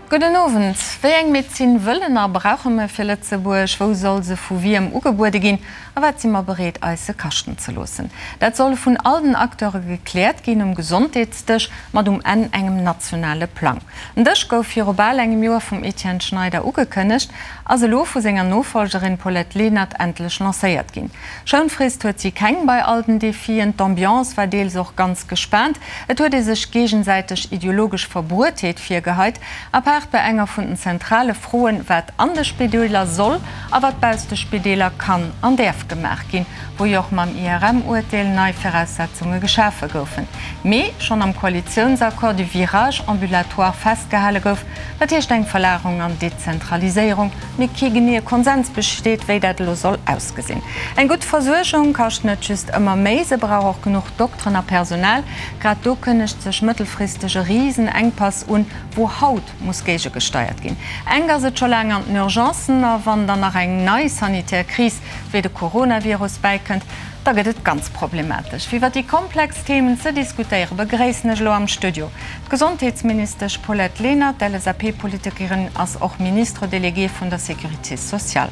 Gudden Owend. Wéi eng Medezin wëllen a brauche mer fir Lëtzebuerg? Wou soll se vu wiem ugebuede ginn? A wat si mer bereet eis se kaschten ze loossen? Dat soll vun all den Acteure gekläert ginn um Gesondheetsdësch mat um Enn engem nationale Plang. Den Dësch gouf viru bal engem Joer vum Etienne Schneider ugekënnegt, ass elo vu senger Nofolgerin Paulette Lenert endlech lancéiert ginn. Schounfrist huet si keng bei all den Defien. D'Ambiance war deels och ganz gespaant. Et huet ee sech géigesäiteg ideologesch Verbruetheet virgeheit, apaart bei enger vun den zentrale Froen, wat an de Spideeler soll a wat bausst de Spideeler kann an däerf gemaach ginn, wou jo och mam IRM-Urteel nei Viraussetzunge geschafe goufen, mee schonn am Koalitiounsaccord du virage ambulatoire festgehale gouf, dat heescht eng Verlagerung an Dezentraliséierung, mee kee geneeë Konsens besteet, wéi dat elo soll ausgesinn. Eng gutt Versuergung kascht net just ëmmer méi, se brauch och genuch Dokteren a Personal. Grad do kënnegt sech mëttelfristeg e Risenengpass un, wou haut muss géigegesteiert ginn. Enk ass et scho laang an den Urgencen a wann dann nach eng nei sanitär Kris wéi de Coronavirus bäikënnt, da gëtt et ganz problematesch. Fir iwwer déi komplex Themen ze diskutéieren, begréissen ech elo am Studio d'Gesondheetsministesch Paulette Lenert. D'LSAP-Politikerin ass och Ministre déléguée vun der Sécurité sociale.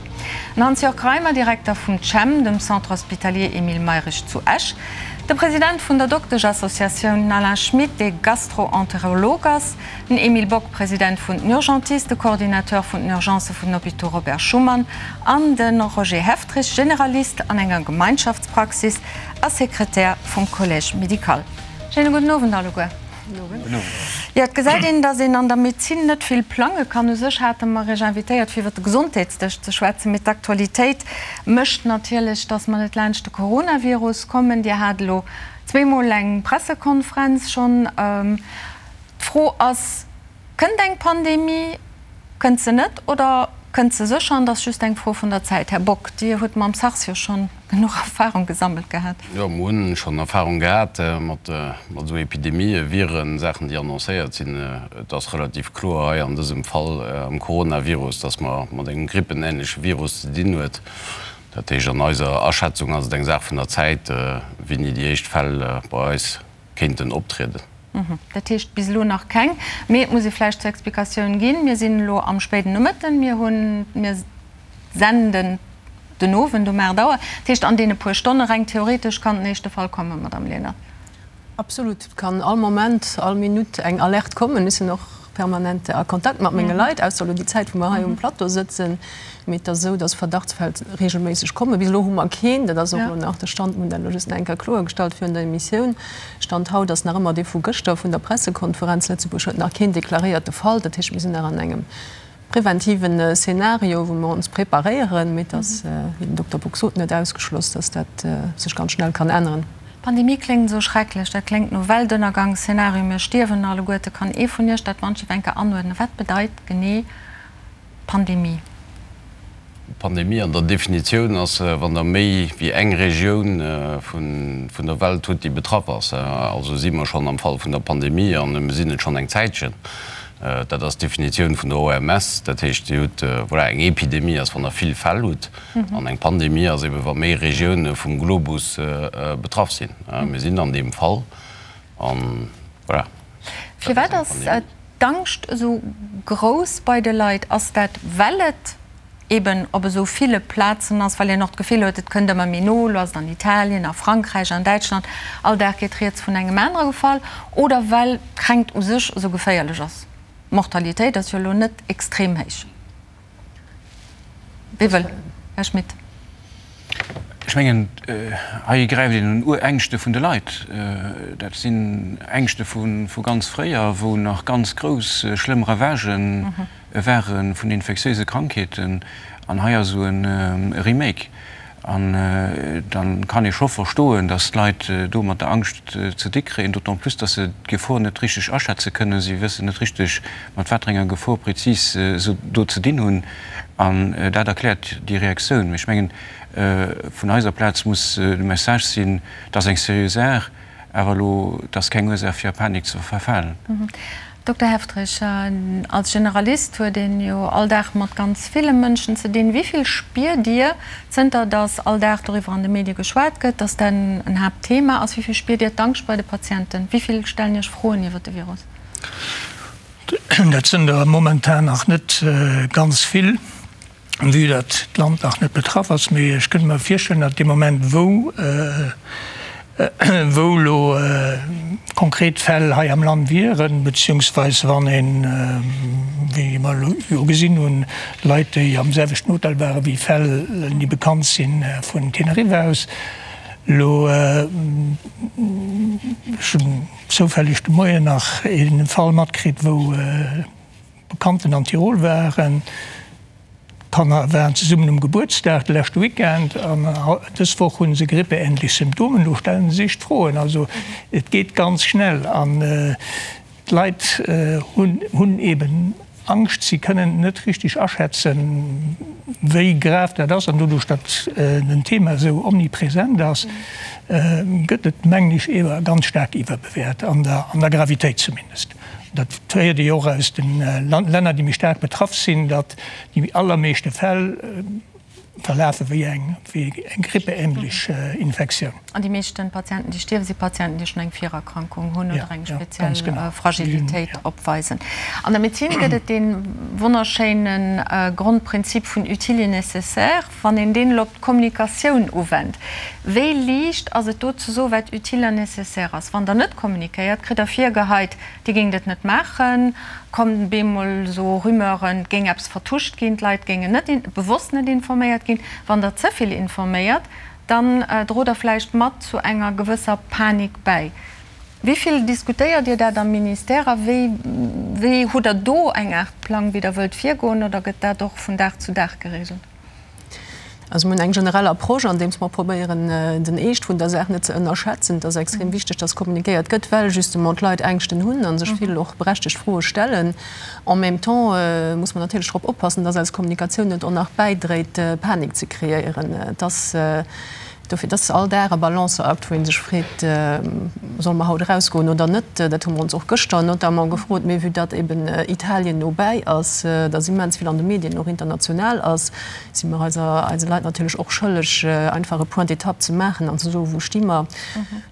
Den Hans-Jörg Reimer, Direkter vum CHEM, dem Centre hospitalier Emile Mayrisch zu Esch. De President vun der Dokteschassociatioun, den Alain Schmit, dee Gastro-Enterolog ass. Den Emile Bock, President vun den Urgentisten, Coordinateur vun den Urgencë vun den Hôpitaux Robert Schuman an de Roger Heftrich, Generalist an enger Gemeinschaftspraxis a Sekretär vum Collège médical. Schéine gudden Owend alleguer. Jo, et gesäit een, datt een an der Medezin net vill plange kann. U sech hate mer Iech invitéiert, fir iwwer de Gesondheetsdësch ze schwätzen, mee d'Aktualitéit mécht natierlech, datt mer net laanscht de Coronavirus kommen. Dir hat elo zweemol eng Pressekonferenz schonn. D'Fro ass, Kënnt eng Pandemie, kënnt se net oder kënnt se sécher an et ass just eng Fro vun der Zäit? Här Bock, Dir hutt mam SARS jo schonn genuch Erfahrung gesammelt gehat. Jo, mer hunn schonn Erfahrung gehat mat esou Epidemien, Viren, Saachen, déi annoncéiert sinn. Et ass relativ kloer hei an dësem Fall am Coronavirus, dass mer mat engem grippenähnleche Virus ze dinn huet. Dat heescht, an eiser Aschätzung ass et eng Saach vun der Zäit, wéini déi éischt Fäll bei eis kéinten optrieden. Dat heescht bis elo nach keng. Mee et muss ee vläicht zur Explikatioun ginn, Mir sinn elo am spéiden Nomëtten, mir hunn, mir senden den Owend um 8 Auer. Dat heescht, an deene puer Stonne, reng theoretesch, kann den éischte Fall kommen, Madamm Lenert. Absolut. Et kann all Moment, all Minutt eng Alerte kommen. Ech sinn och permanent a Kontakt mat menge Leit, ausser elo déi Zäit, wou mer hei um Plateau sëtzen. Mee et ass esou, dass Verdachtsfäll reegelméisseg kommen. Bis elo hu mer keen. Dat ass och elo nach de Stand. Mir hunn dat elo just nach eng Kéier kloergestallt virun der Emissioun. Stand haut ass nach ëmmer dee vu gëschter vun der Pressekonferenz. Lëtzebuerg huet nach keen deklaréierte Fall. Dat heescht, mir sinn nach an engem preventiven Szenario, wou mer ons preparéieren. Mee et ass, wéi den Dokter Bock sot, net ausgeschloss, dass dat sech ganz schnell kann änneren. Pandemie kléngt esou schrecklech, dat kléngt no Weltënnergangsszenario, mir stierwen alleguerte. Kann ee vun Iech dat wann ech eng Kéier anuerdnen? Wat bedeit genee Pandemie? Pandemie an der Definitioun ass, wann Der méi wéi eng Regioun vun der Welt hutt, déi betraff ass. Also si mer schonn am Fall vun der Pandemie an mir sinn et schonn eng Zäitchen. Dat ass d'Definitioun vun der OMS. Dat heescht, Dir hutt, voilà, eng Epidemie ass, wann Der vill Fäll hutt. An eng Pandemie ass ebe wa méi Regioune vum Globus betraff sinn. Mir sinn an deem Fall an voilà. Firwat ass d'Angscht esou grouss bei de Leit? Ass dat well et eben op esou ville Plazen ass, well een och d'Gefill huet, et kënnt ëmmer méi no, elo ass et an Italien, a Frankräich, an Däitschland, all Dag geet rieds vun engem anere Fall, oder well d'Kränkt u sech esou geféierlech ass? D'Mortalitéit ass jo elo net extrem héich. Wie wëll? Här Schmit. Ech mengen, hei gräift een un Urängschte vun de Leit. Dat sinn Ängschte vu ganz fréier, wou nach ganz grouss, schlëmm Ravagë ware vun infektiéise Krankheeten. An hei ass esou e Remake. An da kann ee scho verstoen, datt d'Leit do mat der Angscht ze di kréien, d'autant plus, datt se d'Gefor net richteg aschätze kënnen. Si wëssen net richteg, mat wat fir enger Gefor prezis se do ze dinn hunn. An dat erkläert déi Reaktioun. Mee ech mengen, vun eiser Plaz muss de Message sinn, et ass eng seriö Saach, awer elo, et ass keng Ursaach fir a Panik ze verfalen. Dokter Heftrich, als Generalist huet een jo all Dag mat ganz ville Mënschen ze dinn. Wéi vill spiert Dir, zënter datt all Dag doriwwer an de Medie geschwat gëtt, datt dat en Haaptthema ass, wéi vill spiert Dir d'Angscht bei de Patienten? Wéi vill stellen Iech Froen iwwer de Virus? Dat sënn der momentan nach net ganz vill, vue datt d'Land nach net betraff ass. Mee ech kënnt mer virstellen, datt dee Moment, wou wou elo konkret Fäll hei am Land wieren, beziehungsweis wann een, wéi mer elo jo gesinn hunn, Leit, déi am selwechten Hotel ware wéi Fäll, déi bekannt sinn vun Teneriffa aus, elo, ech hunn zoufälleg de Moien nach ee Fall matkritt, wou Bekannten an Tirol waren. D'Kanner waren zesummen um Gebuertsdag de leschte Weekend an dës Woch hu se grippeähnlech Symptomen. Elo stelle se sech d'Froen. Also et geet ganz schnell an d'Leit hunn eben Angscht. Si kënnen net richteg aschätzen, wéi grav dat ass. An doduerch, datt den Thema esou omnipresent ass, gëtt et, mengen ech, ewer ganz staark iwwerbewäert, an der Gravitéit zumindest. Dat héiert ee jo och aus de Länner, déi méi staark betraff sinn, datt déi allermeeschte Fäll verlafe wéi eng grippeähnlech Infektioun. An déi meeschte Patienten, déi stierwen, si Patienten, déi schonn eng Virerkrankung hunn oder eng speziell Fragilitéit opweisen. An der Medezin gëtt et dee wonnerschéine Grondprinzip vun utile et nécessaire. Wann een deen elo op d'Kommunikatioun uwennt, wéi liicht ass et do ze soen, wat utile an nécessaire ass? Wann Der net kommunikéiert, kritt Der virgeheit, Dir géingt et net maachen, kommen bemol esou Rumeuren, et géing eppes vertuscht ginn, d'Leit géingen net, bewosst net informéiert ginn. Wann Der ze vill informéiert, dann drot Der vläicht mat zu enger gewësser Panik bäi. Wéi vill diskutéiert Dir dat am Ministère a wéi, wéi hutt Der do eng Aart Plang, wéi Der wëllt virgoen, oder gëtt dat och vun Dag zu Dag geregelt? Also mir hunn eng generell Approche, andeems mer probéieren, den Eescht vun der Saach net ze ënnerschätzen. Et ass extrem wichteg, dass kommunikéiert gëtt, well justement d'Leit Ängschten hunn a sech vill och berechtegt Froe stellen. En même temps muss mer natierlech drop oppassen, dass eis Kommunikatioun net och nach bäidréit, Panik ze kreéieren. Et ass Dofir, et ass all Dag e Balanceakt, wou ee sech freet, Solle mer haut erausgoen oder net? Dat hu mer ons och gëschter notamment gefrot. Mee vue datt eben Italien no bäi ass, datt immens vill an de Medien och international ass, si mer eiser, eise Leit natierlech och schëlleg, einfach e Point d'étape ze maachen an ze soen, Wou sti mer?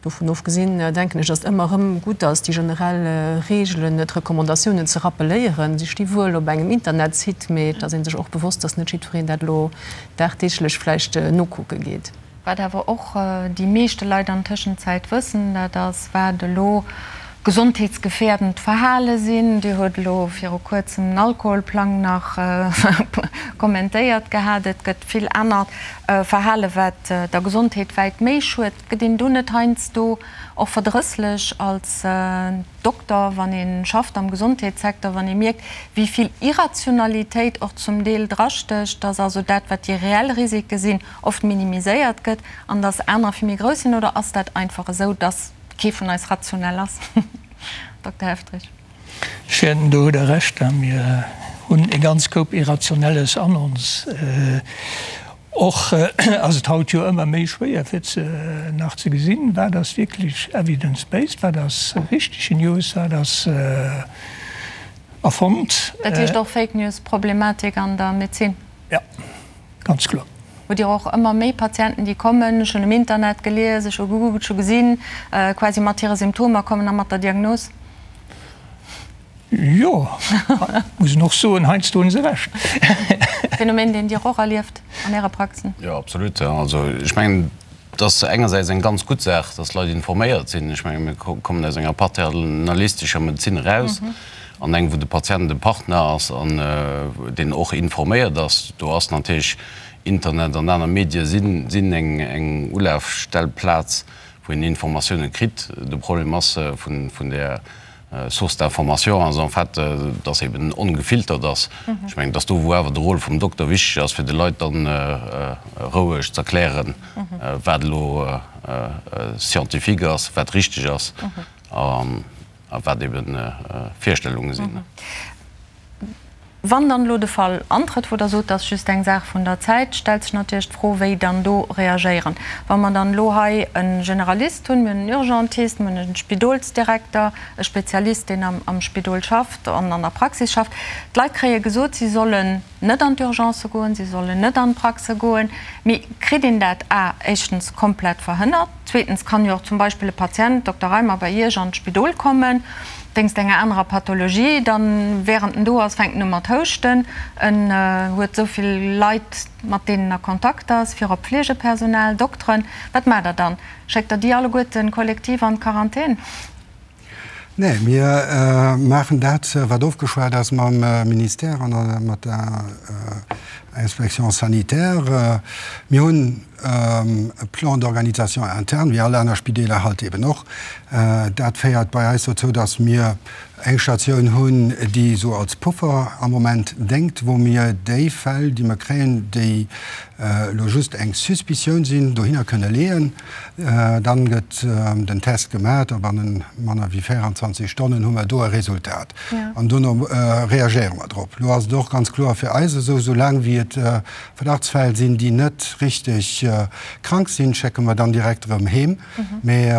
Dovun ofgesinn denken ech, datt et ëmmer erëm gutt ass, déi generell Reegelen, d'Recommandatiounen ze rappeléieren. Si sti wuel op engem Internetsite, mee et ass ee sech och bewosst, datt net jiddwereen dat elo dagdeeglech vläicht nokucke geet. Wat awer och déi meeschte Leit an Tëschenzäit wëssen, dat ass, wat elo gesondheetsgefährdend Verhale sinn. Dir huet elo viru Kuerzem den Alkoholplang nach kommentéiert gehat. Et gëtt vill anert Verhale wat der Gesondheet wäit méi schued. Gëtt een do net heiansdo och verdrësslech als Dokter, wann ee schafft am Gesondheetssecteur, wann ee mierkt, wéi vill Irrationalitéit och zum Deel drastécht, dass also dat, wat déi reell Risike sinn, oft minimiséiert gëtt an dass anerer vill méi grouss sinn? Oder ass dat einfach esou, dass kee vun eis rationell ass? Dokter Helfrich. Ech wäerten, do hutt Der Recht, mir hunn e ganz Koup Irrationelles an ons. Och ass et haut jo ëmmer méi schwéier fir ze nach ze gesinn, wat ass wierklech evidence-based, wat ass richtege News, wat ass erfonnt. Dat heescht och Fake News-Problematik an der Medezin? Jo, ganz kloer. Hutt Dir och ëmmer méi Patienten, déi kommen, ech hunn um Internet gelies, ech hu gegoogelt, ech hu gesinn, quasi mat hire Symptomer kommen a mat der Diagnos? Jo, muss een och soen, heiansdo hunn se Recht. Phänomen, deen Dir och erlieft an Äre Praxen? Jo, absolut. Also ech mengen, et ass engersäits eng ganz gutt Saach, dass d'Leit informéiert sinn. Ech menge mir kommen aus enger paternalistescher Medezin eraus an eng, wou de Patient de Partner ass an deen och informéiert ass. Do ass natierlech Internet an aner Medie sinn eng Ulafstellplaz, wou een Informatioune kritt. De Problem ass vun där Source d'information ass en fait, dass eben ongefiltert ass. Ech mengen, dass do, wou awer de Rôle vum Dokter wichteg ass, fir de Leit dann roueg z'erklären, wat elo scientifique ass, wat richteg ass a wat eben Virstellunge sinn. Wann dann elo de Fall antrëtt, wou Der sot, dat ass just eng Saach vun der Zäit, stellt sech natierlech d'Fro, wéi dann do reagéieren. Wa mer dann elo hei e Generalist hunn, mir hunn en Urgentist, mir hunn e Spidolsdirekter, e Spezialist, deen am Spidol schafft an an der Praxis schafft, d'Leit kréie gesot, si sollen. net an d'Urgencë goen, si sollen net an d'Praxe goen. Mee kritt een dat a éischtens komplett verhënnert? Zweetens kann jo och zum Beispill e Patient, Dokter Reimer, bei Iech an d'Spidol kommen, wéinst enger anerer Pathologie, dann, während en do ass, fänkt en u mat houschten, en huet esou vill Leit, mat deenen a Kontakt ass, virop Pflegepersonal, Dokteren. Wat maacht Der dann? Schéckt Der déi alleguerten kollektiv an d'Quarantän? Nee, mir maachen dat, wat ofgeschwat ass mam Ministère an mat der Inspection sanitaire. Mir hunn e Plan d'organisation interne, wéi all aner Spideeler halt eben och. Dat féiert bei eis dozou, dass mir eng Statioun hunn, déi esou als Puffer am Moment déngt, wou mir déi Fäll, déi mer kréien, déi elo just eng Suspicioun sinn, dohinner kënne leeën. Dann gëtt den Test gemat a bannen manner wéi 24 Stonnen hu mer do e Resultat. An dono reagéiere mer drop. Lo ass et och ganz kloer fir eis esou, soulaang wéi et Verdachtsfäll sinn, déi net richteg krank sinn, schécke mer dann direkt erëm heem. Mee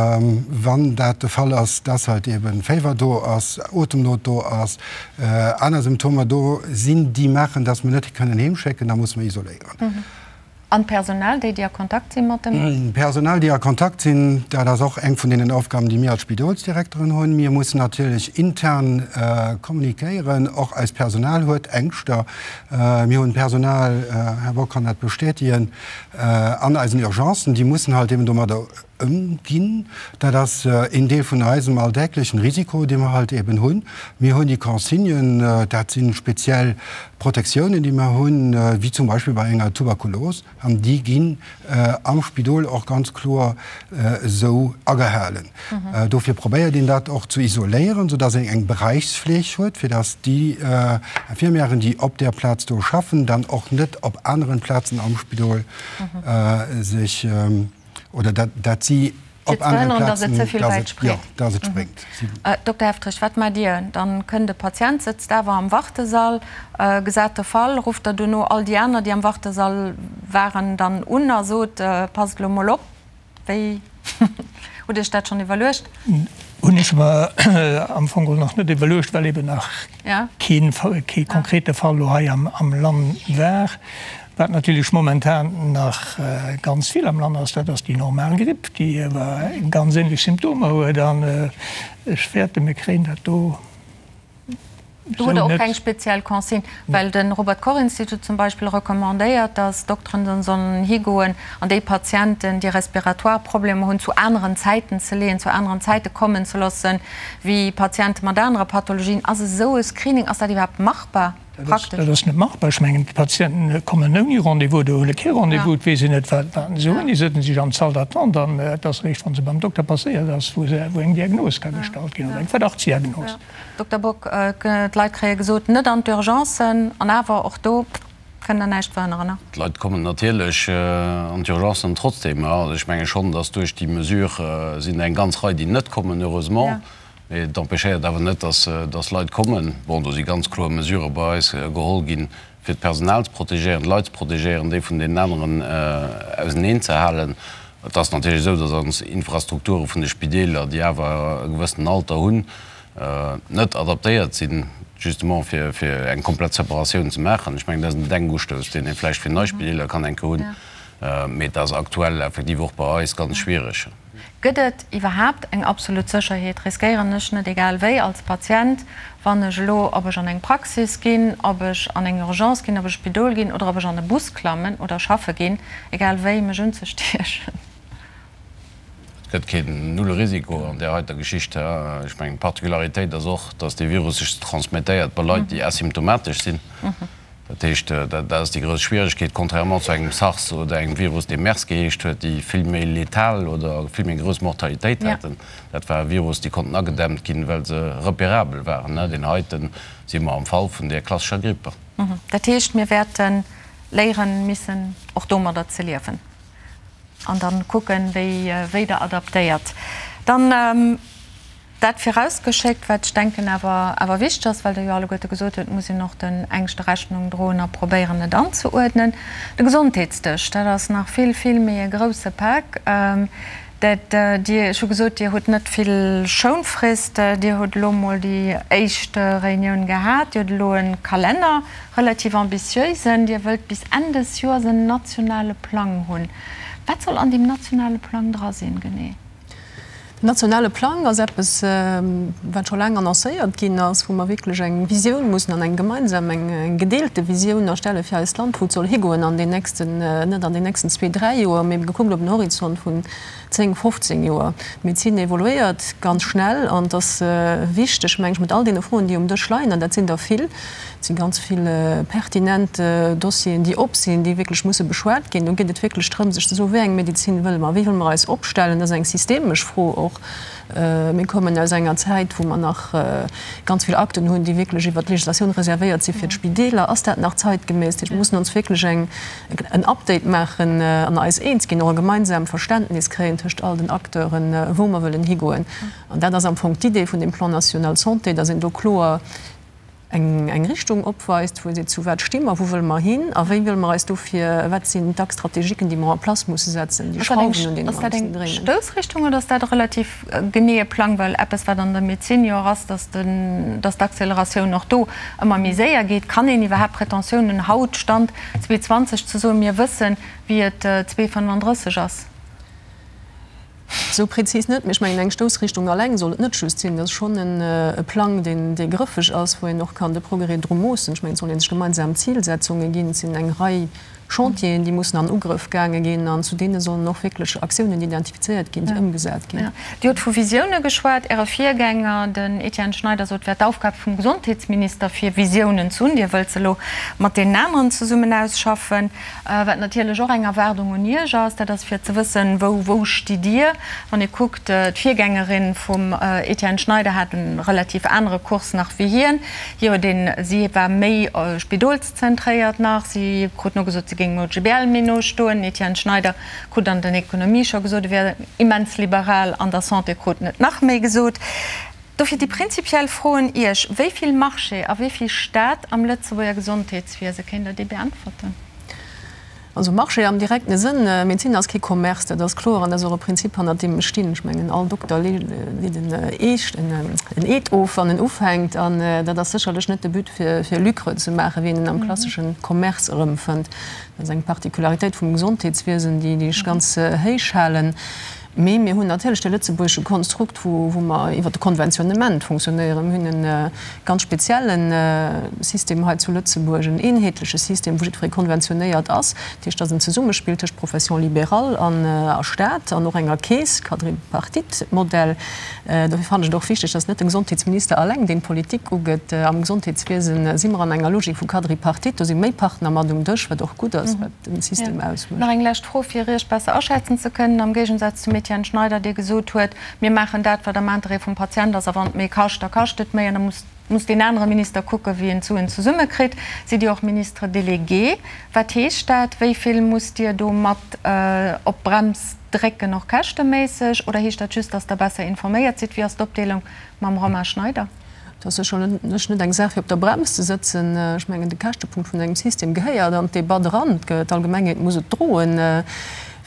wann dat de Fall ass, dass halt eeben Féiwer do ass, Otemnot do ass, aner Symptomer do sinn, déi maachen, dass mer net kënnen heemschécken, da musse mer isoléieren. An d'Personal, déi, déi a Kontakt si mat dem. D'Personal, déi a Kontakt sinn, dat ass och eng vun deenen Aufgaben, déi mir als Spidolsdirekteren hunn. Mir mussen natierlech intern kommunikéieren. Och eist Personal huet Ängschter. Mir hunn Personal, Här Bock kann dat bestätigen, an eisen Urgencen, déi mussen halt eben domadder Ëmginn. Dat ass een Deel vun eisem alldäglechen Risiko, dee mer halt eben hunn. Mir hunn déi Consignen, dat si speziell Protektiounen, déi mer hunn, wéi zum Beispill bei enger Tuberkulos, an déi ginn am Spidol och ganz kloer esou agehalen. Dofir probéiert een dat och ze isoléieren, soudass een eng Beräichsfleeg huet, fir dass déi Infirmièren, déi op där Plaz do schaffen, dann och net op aneren Plazen am Spidol sech Oder dat, dat si op aneren Plazen, dass et, jo, dass et spréngt. Dokter Heftrich, wat maacht Dir? Dann kënnt e Patient, sëtzt awer am Wartesall, gesat de Fall, rufft Der dono all déi aner, déi am Wartesall waren, dann un a sot, passt elo mol op? Wéi hutt Iech dat schonn iwwerluecht? Hunn ech mer am Fong geholl nach net iwwerluecht, well eben nach kee konkrete Fall elo hei am Land war. Wat natierlech momentan nach ganz vill am Land ass, dat ass déi normal Gripp, déi awer ganz änlech Symptomer huet. An ech fäerten, mir kréien dat do Do hutt Der och keng speziell Consigne? Well de Robert Koch Institut zum Beispill recommandéiert, datt Dokteren dann sollen higoen an déi Patienten, déi respiratoire Problemer hunn, zu aneren Zäiten ze leeën, zu aneren Zäite kommen ze loossen, wéi Patiente mat anere Pathologien. Ass esou e Screening, ass dat iwwerhaapt machbar? Praktesch. Dat ass net machbar. Ech mengen, d'Patienten kommen ouni Rendez-vous oder huele kee Rendez-vous. Et weess een net, wat se hunn. Déi sëtzen sech an d'Salle d'attente an et ass eréischt, wa se beim Dokter passéiert ass, wou eng Diagnos ka gestallt ginn oder eng Verdachtsdiagnos. Dokter Bock, D'Leit kréie gesot, net an d'Urgencen, an awer och do kënnt Der näischt verhënneren. D'Leit kommen natierlech an d'Urgencen trotzdem. Also ech menge schonn, datt duerch déi Mesure sinn der eng ganz Rei, déi net kommen, heureusement. Mee et empêchéiert awer net, dass Leit kommen. Bon, do si ganz kloer Mesurë bei eis geholl ginn, fir d'Personal ze protegéieren, d'Leit ze protegéieren, déi vun deenen aneren auseneen ze halen. Et ass natierlech esou, dass ons Infrastrukture vun de Spideeler, déi awer e gewëssenen Alter hunn, net adaptéiert sinn, justement fir eng komplett Separatioun ze maachen. Ech mengen, dat ass en Denkustouss, deen ee vläicht fir nei Spideeler kann eng Kéier hunn, mee et ass aktuell effektiv och bei eis ganz schwiereg. Gëtt et iwwerhaapt eng absolut Sécherheet? Riskéieren ech net egal wéi als Patient, wann ech elo, ob ech an eng Praxis ginn, ob ech an eng Urgence ginn, ob ech Spidol ginn oder ob ech an e Bus klammen oder schaffe ginn, egal wéi, mech unzestiechen? Et gëtt keen Nullrisiko an där heiter Geschicht. Ech mengen, d'Particularitéit ass och, dass dee Virus sech transmettéiert bei Leit, déi asymptomatesch sinn. Dat heescht, dat ass déi grouss Schwieregkeet, contrairement zu engem SARS oder engem Virus, dee MERS geheescht huet, déi vill méi letal oder vill méi grouss Mortalitéit haten. Dat war e Virus, déi konnten agedämmt ginn, well se repérabel waren. Deen heite si mer am Fall vun där klassescher Gripp. Dat heescht, mir wäerte léieren missen, och domadder ze liewen an da kucken, wéi Der adaptéiert dann. Dat virausgeschéckt, wat ech denken awer awer wichteg ass, well Der jo alleguerte gesot hutt, et muss een och den Ängschte Rechnung droen a probéieren et anzeuerdnen. De Gesondheetsdësch, dat ass nach vill, vill méi e grouse Pak. Dat Dir, ech hu gesot, Dir hutt net vill Schounfrist. Dir hutt elo emol déi éischt Reunioun gehat. Dir hutt elo e Kalenner, relativ ambitiösen. Dir wëllt bis Enn des Joers en nationale Plang hunn. Wat soll an deem nationale Plang dra sinn, genee? Den nationale Plang ass eppes, wat scho laang annoncéiert ginn ass, wou mer wierklech eng Visioun mussen an eng gemeinsam, eng gedeelte Visioun erstelle fir eist Land, wou et soll higoen an den nächsten, net an den nächsten zwee, dräi Joer, mee gekuckt op en Horizont vun 10, 15 Joer. D'Medezin evoluéiert ganz schnell an et ass wichteg, meng ech, mat all deene Froen, déi um Dësch leien, an dat sinn der vill, Et si ganz vill pertinent Dossieren, déi op sinn, déi wierklech musse beschwat ginn. Do geet et wierklech drëm, sech ze soen, Wéi eng Medezin wëlle mer? Wéi wëlle mer eis opstellen? Dat ass eng systemesch Fro och. Mir kommen aus enger Zäit, wou mer nach ganz vill Akten hunn, déi wierklech iwwert d'Legislatioun reservéiert si fir d'Spideeler. Ass dat nach zeitgemäss? Dat heescht, mir mussen ons wierklech eng, en Update maachen an eis eens ginn, och e gemeinsam Verständnis kréien tëscht all den Acteuren, wou mer wëllen higoen. An dat ass am Fong d'Idee vun deem Plan national santé, dass een do kloer eng Richtung opweist, wou ee seet, zu wat sti mer, wou wëlle mer hin a wéi wëlle mer eis dofir, wat sinn d'Axes stratégiquen, déi mer en place musse setzen, déi Schrauwen, un deene mer mussen dréinen. Ass dat eng Stoussrichtung oder ass dat e relativ geneeë Plang? Well eppes, wat an der Medezin jo och ass, dass d'Acceleratioun och do ëmmer méi séier geet. Kann een iwwerhaapt Pretentioun hunn, haut, Stand 2020, ze soen, mir wëssen, wéi et 2035 ass? Esou prezis net, mee ech mengen, eng Stoussrichtung alleng soll et net just sinn. Dat ass schonn e Plang, deen, dee grëffeg ass, wou een och kann de Progrès dru moossen. Ech mengen, et soll ee sech gemeinsam Zilsetzunge ginn. Et sinn eng Rei Chantieren, déi mussen an Ugrëff gaange ginn an zu deene sollen och wierklech Aktiounen identifizéiert ginn, déi ëmgesat ginn. Dir hutt vu Visioune geschwat. Äre Virgänger, den Etienne Schneider, sot, et wär d'Aufgab vum Gesondheetsminister, fir Visiounen ze hunn. Dir wëllt se elo mat deenen aneren zesummen ausschaffen. Wat natierlech och eng Erwaardung un Iech ass, dat ass fir ze wëssen, wou, wou stitt Dir? Wann ee kuckt, d'Virgängerin vum Etienne Schneider hat e relativ anere Kurs nach wéi hien. Hie huet een, si war méi spidolszentréiert nach, si krut nogesot, si géing dem OGBL méi no stoen. Den Etienne Schneider krut an den Ekonomie scho gesot, e wär immens liberal, an der Santé krut en et nach méi gesot. Dofir déi prinzipiell Fro un Iech, Wéi vill Marché a wéi vill Staat am Lëtzebuerger Gesondheetswiese? Kéint Der déi beäntwerten? Also Marché am direkte Sënn, Medezin ass kee Commerce, dat ass kloer an dat ass och e Prinzip hannert deem ech stinn. Ech mengen all Dokter leet en Eed of wann en ufänkt an dat ass sécherlech net de But fir Lucre ze maachen, wéi een en am klassesche Commerce erëmfënnt. Dat ass eng Particularitéit vum Gesondheetswiesen, déi ech ganz héich halen. Mee mir hunn natierlech de lëtzebuergesche Konstrukt, wou mer iwwert de Konventionnement fonctionnéieren. Mir hunn e ganz spezielle System hei zu Lëtzebuerg, en eenheetleche System, wou jiddweree konventionéiert ass. Dat heescht, et ass en Zesummespill tëscht Profession libérale a Staat an och enger Keess, Quadripartite-Modell. Dofir fannen ech et och wichteg, dass net de Gesondheetsminister alleng deen d'Politik ugeet. Am Gesondheetswiesen si mer an enger Logik vu Quadripartite, do si méi Partner mat um Dësch, wat och gutt ass, wat den System ausmécht. Nach eng lescht Fro, fir Iech besser aschätzen ze kënnen, am Géigensaz zum Etienne Schneider, dee gesot huet, mir maachen dat, wat am Interêt vum Patient ass, a wann et méi kascht, da kascht et méi, an da muss muss deen anere Minister kucken, wéi en d'Suen zesummekritt. Sidd Dir och Ministre délégué? Wat heescht dat? Wéi vill musst Dir do mat op d'Brems drécken, och käschteméisseg? Oder heescht dat just, datt Der besser informéiert sidd? Wéi ass d'Opdeelung mam Romain Schneider? Et ass sécherlech net eng Saach fir op der Brems ze sëtzen. Ech mengen, de Käschtepunkt vun engem System gehéiert an d'Debatt eran. D'Allgemengheet muss et droen.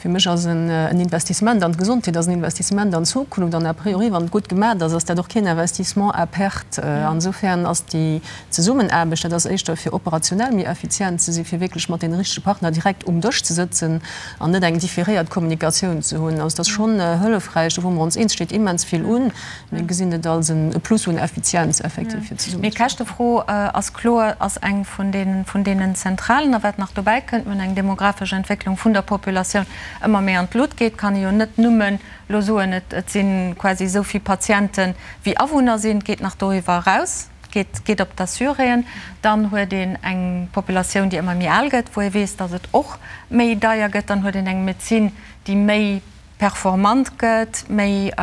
Fir mech ass en Investissement an d'Gesondheet ass en Investissement an d'Zukunft. An a priori, wann et gutt gemat ass, ass dat och keen Investissement à perte. Insofern ass déi Zesummenaarbecht, dat ass éischter fir operationell méi effizient ze sinn, fir wierklech mat deene richtege Partner direkt um Dësch ze sëtzen an net eng différéiert Kommunikatioun ze hunn. Also et ass schonn hëllefräich, do wou mer ons eens, steet immens vill un. Mir gesinn et als e Plus un Effizienz effektiv fir zesummen. Mee d'Käschtefro ass kloer, ass eng vun deenen, vun deenen zentralen. A wat nach dobäi kënnt, mir hunn eng demografesch Entwécklung vun der Populatioun ëmmer méi an d'Lut geet, kann ee jo net nëmmen elo soen, et, et si quasi esou vill Patiente wéi Awunner sinn. Et geet nach doriwwer eraus, et geet, geet op d'Assuréen. Dann huet een eng Populatioun, déi ëmmer méi al gëtt, wou ee weess, datt et och méi deier gëtt. Dann huet een eng Medezin, déi méi performant gëtt, méi,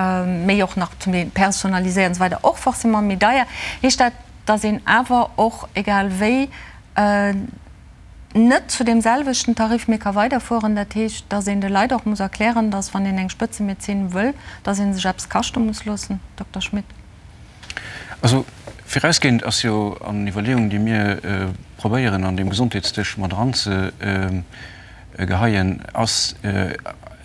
méi och nach zum Deel personaliséiert an esou weider, och forcément méi deier. Heescht dat, datt een awer och, egal wéi, net zu deem selwechten Tarif méi ka weiderfueren? Dat heescht, datt een de Leit och muss erklären, datt wann een eng Spëtzemedezin wëll, datt ee sech eppes kaschte muss loossen? Dokter Schmit. Also virausgehend ass jo an Iwwerleeungen, déi mir probéieren an deem Gesondheetsdësch mat eranzegeheien, ass.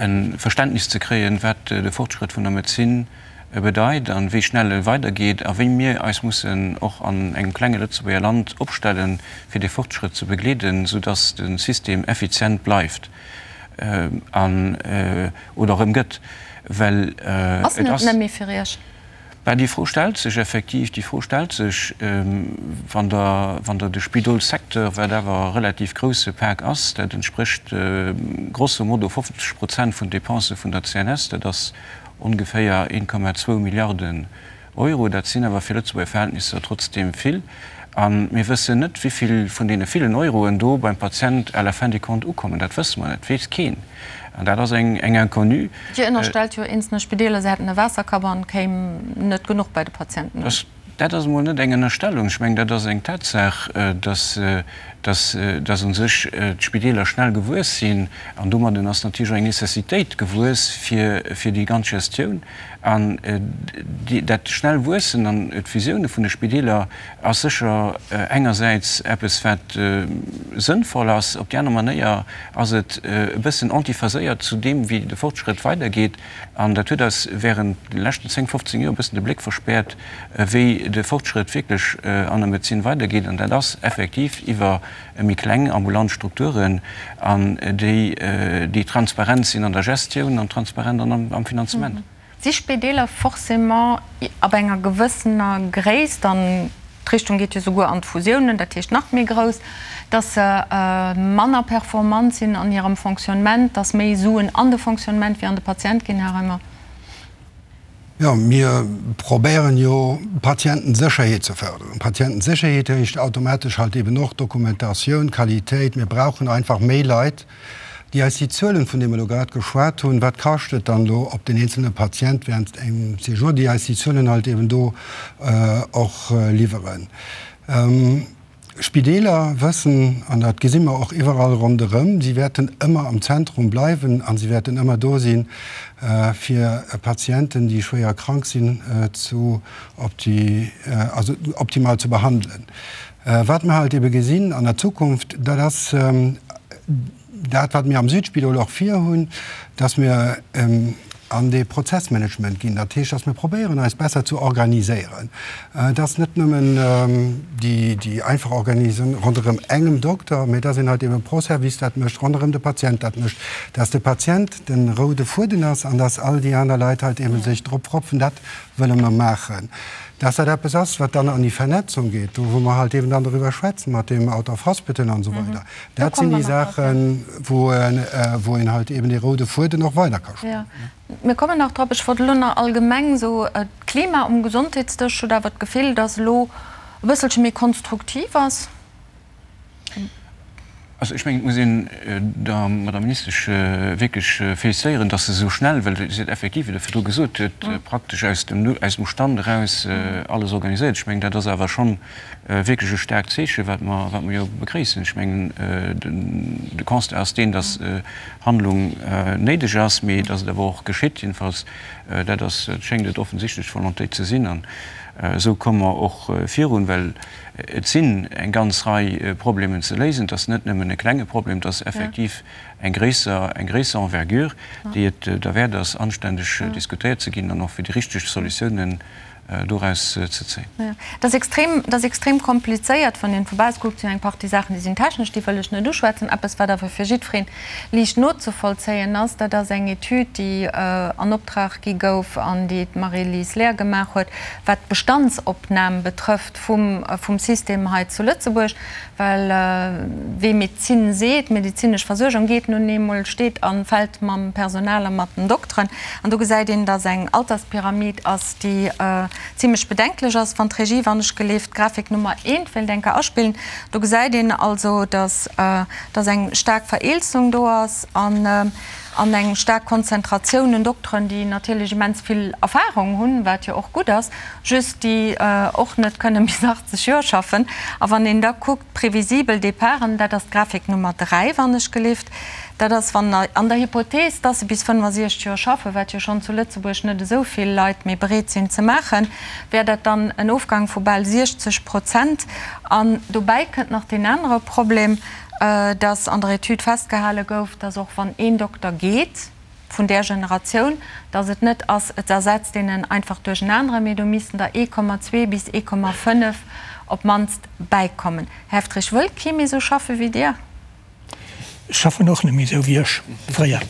e Verständnis ze kréien, wat de Fortschrëtt vun der Medezin bedeit a wéi schnell e weidergeet a wéi mir eis mussen och an engem klenge Lëtzebuerger Land opstellen, fir dee Fortschrëtt ze begleeden, soudass de System effizient bleift an oder erëm gëtt, well Ass en et net méi fir Iech? Bah, déi Fro stellt sech effektiv. Déi Fro stellt sech, wann Der, wann Der de Spidolssecteur, wat awer e relativ grouse Pak ass, dat entsprécht grosso modo 50 Prozent vun Dépensë vun der CNS, dat ass ongeféier 1,2 Milliarden Euro, dat sinn awer fir Lëtzebuerger Verhältnisser trotzdeem vill. A mir wëssen net, wéi vill vun deene villen Euroen do beim Patient à la fin des comptes ukommen. Dat wësse mer net, dat weess keen. An dat ass eng Inconnue. Dir ënnerstellt jo eenzelne Spideeler, se hätten e Waasserkapp an et kéim net genuch bei de Patienten un. Dat ass emol net eng Ënnerstellung. Ech mengen, dat ass eng Tatsaach, dass, dass, dass u sech d'Spideeler schnell gewuess sinn. An domadden ass natierlech och eng Necessitéit gewuess fir, fir déi ganz Gestioun. An dat schnell Wuessen an d'Fusioune vun de Spideeler ass sécher engersäits eppes, wat sënnvoll ass. Op déi aner Manéier ass et e bëssen antiphaséiert zu deem, wéi de Fortschrëtt weidergeet. An dat huet eis während de leschten 10, 15 Joer e bëssen de Bléck verspäert, wéi de Fortschrëtt wierklech an der Medezin weidergeet. An dat ass effektiv iwwer méi kleng ambulant Strukturen an déi, déi transparent sinn an der Gestioun an transparent an am Finanzement. Si Spideeler forcément ab enger gewëssener Gréisst, an d'Richtung geet jo souguer an d'Fusiounen, dat heescht nach méi grouss, dass se manner performant sinn an hirem Fonctionnement, dass méi Suen an de Fonctionnement wéi an de Patient ginn, Här Reimer? Jo, mir probéieren jo Patientensécherheet ze förderen. Patientensécherheet heescht automatesch halt eben och Dokumentatioun, Qualitéit. Mir brauchen einfach méi Leit, déi eis déi Zuelen, vun deene mer elo grad geschwat hunn, wat kascht et dann elo op den eenzelne Patient während engem Séjour, déi eis déi Zuelen halt eben do och liwweren. Spideeler wëssen, an dat gesi mer och iwwerall ronderëm, si wäerten ëmmer am Zentrum bleiwen a si wäerten ëmmer do sinn, fir Patienten, déi schwéier krank sinn, zu also optimal ze behandelen. Wat mer halt ebe gesinn an der Zukunft, dat ass dat, wat mir am Südspidol och virhunn, dass mir an dee Prozessmanagement ginn. Dat heescht, dass mir probéieren, eis besser ze organiséieren, dass net nëmmen déi einfach Organisatioun ronderëm engem Dokter, mä dass een halt eben pro Service dat mécht, ronderëm de Patient dat mécht, dass de Patient de roude Fueden ass an dass all déi aner Leit halt eben sech drop propfen. Dat wëlle mer maachen. Dass dat eppes ass, wat dann an déi Vernetzung geet, do wou mer halt eben dann doriwwer schwätzen mat deem Out of Hospital an esou weider, Dat sinn déi Saachen, wou een halt eben dee roude Fueden och weider ka spannen. Mir kommen nach drop. Ech wollt elo nach allgemeng esou, d'Klima um Gesondheetsdësch huet awer d'Gefill, datt elo e bësselche méi konstruktiv ass. Also ech mengen, et muss een der Madame Ministesch wierklech félicitéieren, datt se esou schnell, well si huet effektiv, wéi Der virdru gesot huet, praktesch aus dem Stand eraus alles organiséiert. Ech mengen, dat ass awer schonn wierklech e staarkt Zeechen, wat mer, wat mer jo begréissen. Ech mengen, de Constat ass deen, dass Handlung néideg ass, mee dass et awer och geschitt. Jedenfalls, dat ass, schéngt et offensichtlech d'Volontéit ze sinn. An esou komme mer och virun, well et sinn eng ganz Rei Problemen ze léisen. Et ass net nëmmen e klenge Problem, et ass effektiv eng gréisser, eng gréisser Envergure, déi et derwäert ass, anständeg diskutéiert ze ginn an och fir déi richteg Solutiounen doraus ze zéien. Dat ass extrem, dat ass extrem komplizéiert, wann een vu bausse kuckt. Sinn eng Partie Saachen, déi sinn technesch, déi wëll ech net uschwätzen. Eppes, wat awer fir jiddweree liicht nozevollzéien ass, dat ass eng Etüd, déi an Optrag gi gouf an déi d'Marie-Lise Lehr gemaach huet, wat d'Bestandsopnam betrëfft vum, vum System hei zu Lëtzebuerg. Well wee Medezin seet, medezinesch Versuergung geet nun eemol, steet a fält mam Personal a mat den Dokteren. An do gesäit een, dass eng Alterspyramid ass, déi zimlech bedenklech ass. Wann d'Regie, wann ech geleeft, d'Grafik Nummer eent wéilt eng Kéier aspillen, do gesäit een also, dass dass eng staark Vereelzung do ass an an eng staark Konzentratioun un Dokteren, déi natierlech immens vill Erfahrung hunn, wat jo och gutt ass, just déi och net kënne bis 80 Joer schaffen. A wann een da kuckt, previsibel Departen, dat ass d'Grafik Nummer 3, wann ech gelift, dat ass, wann an der Hypothees, dass se bis 65 Joer schaffen, wat jo schonn zu Lëtzebuerg net esou vill Leit méi bereet sinn ze maachen, wär dat dann en Ofgang vu bal 60 Prozent. An dobäi kënnt nach deen anere Problem, dass an der Etüd festgehale gouf, dass och wann een Dokter geet. vun där Generatioun, datt et net ass, et ersetzt een en einfach duerch en aneren, mee do missten der 1,2 bis 1,5 op d'mannst bäikommen. Här Heftrich, wëll kee méi esou schaffe wéi Dir? Ech schaffen och net méi esou wéi ech fréier.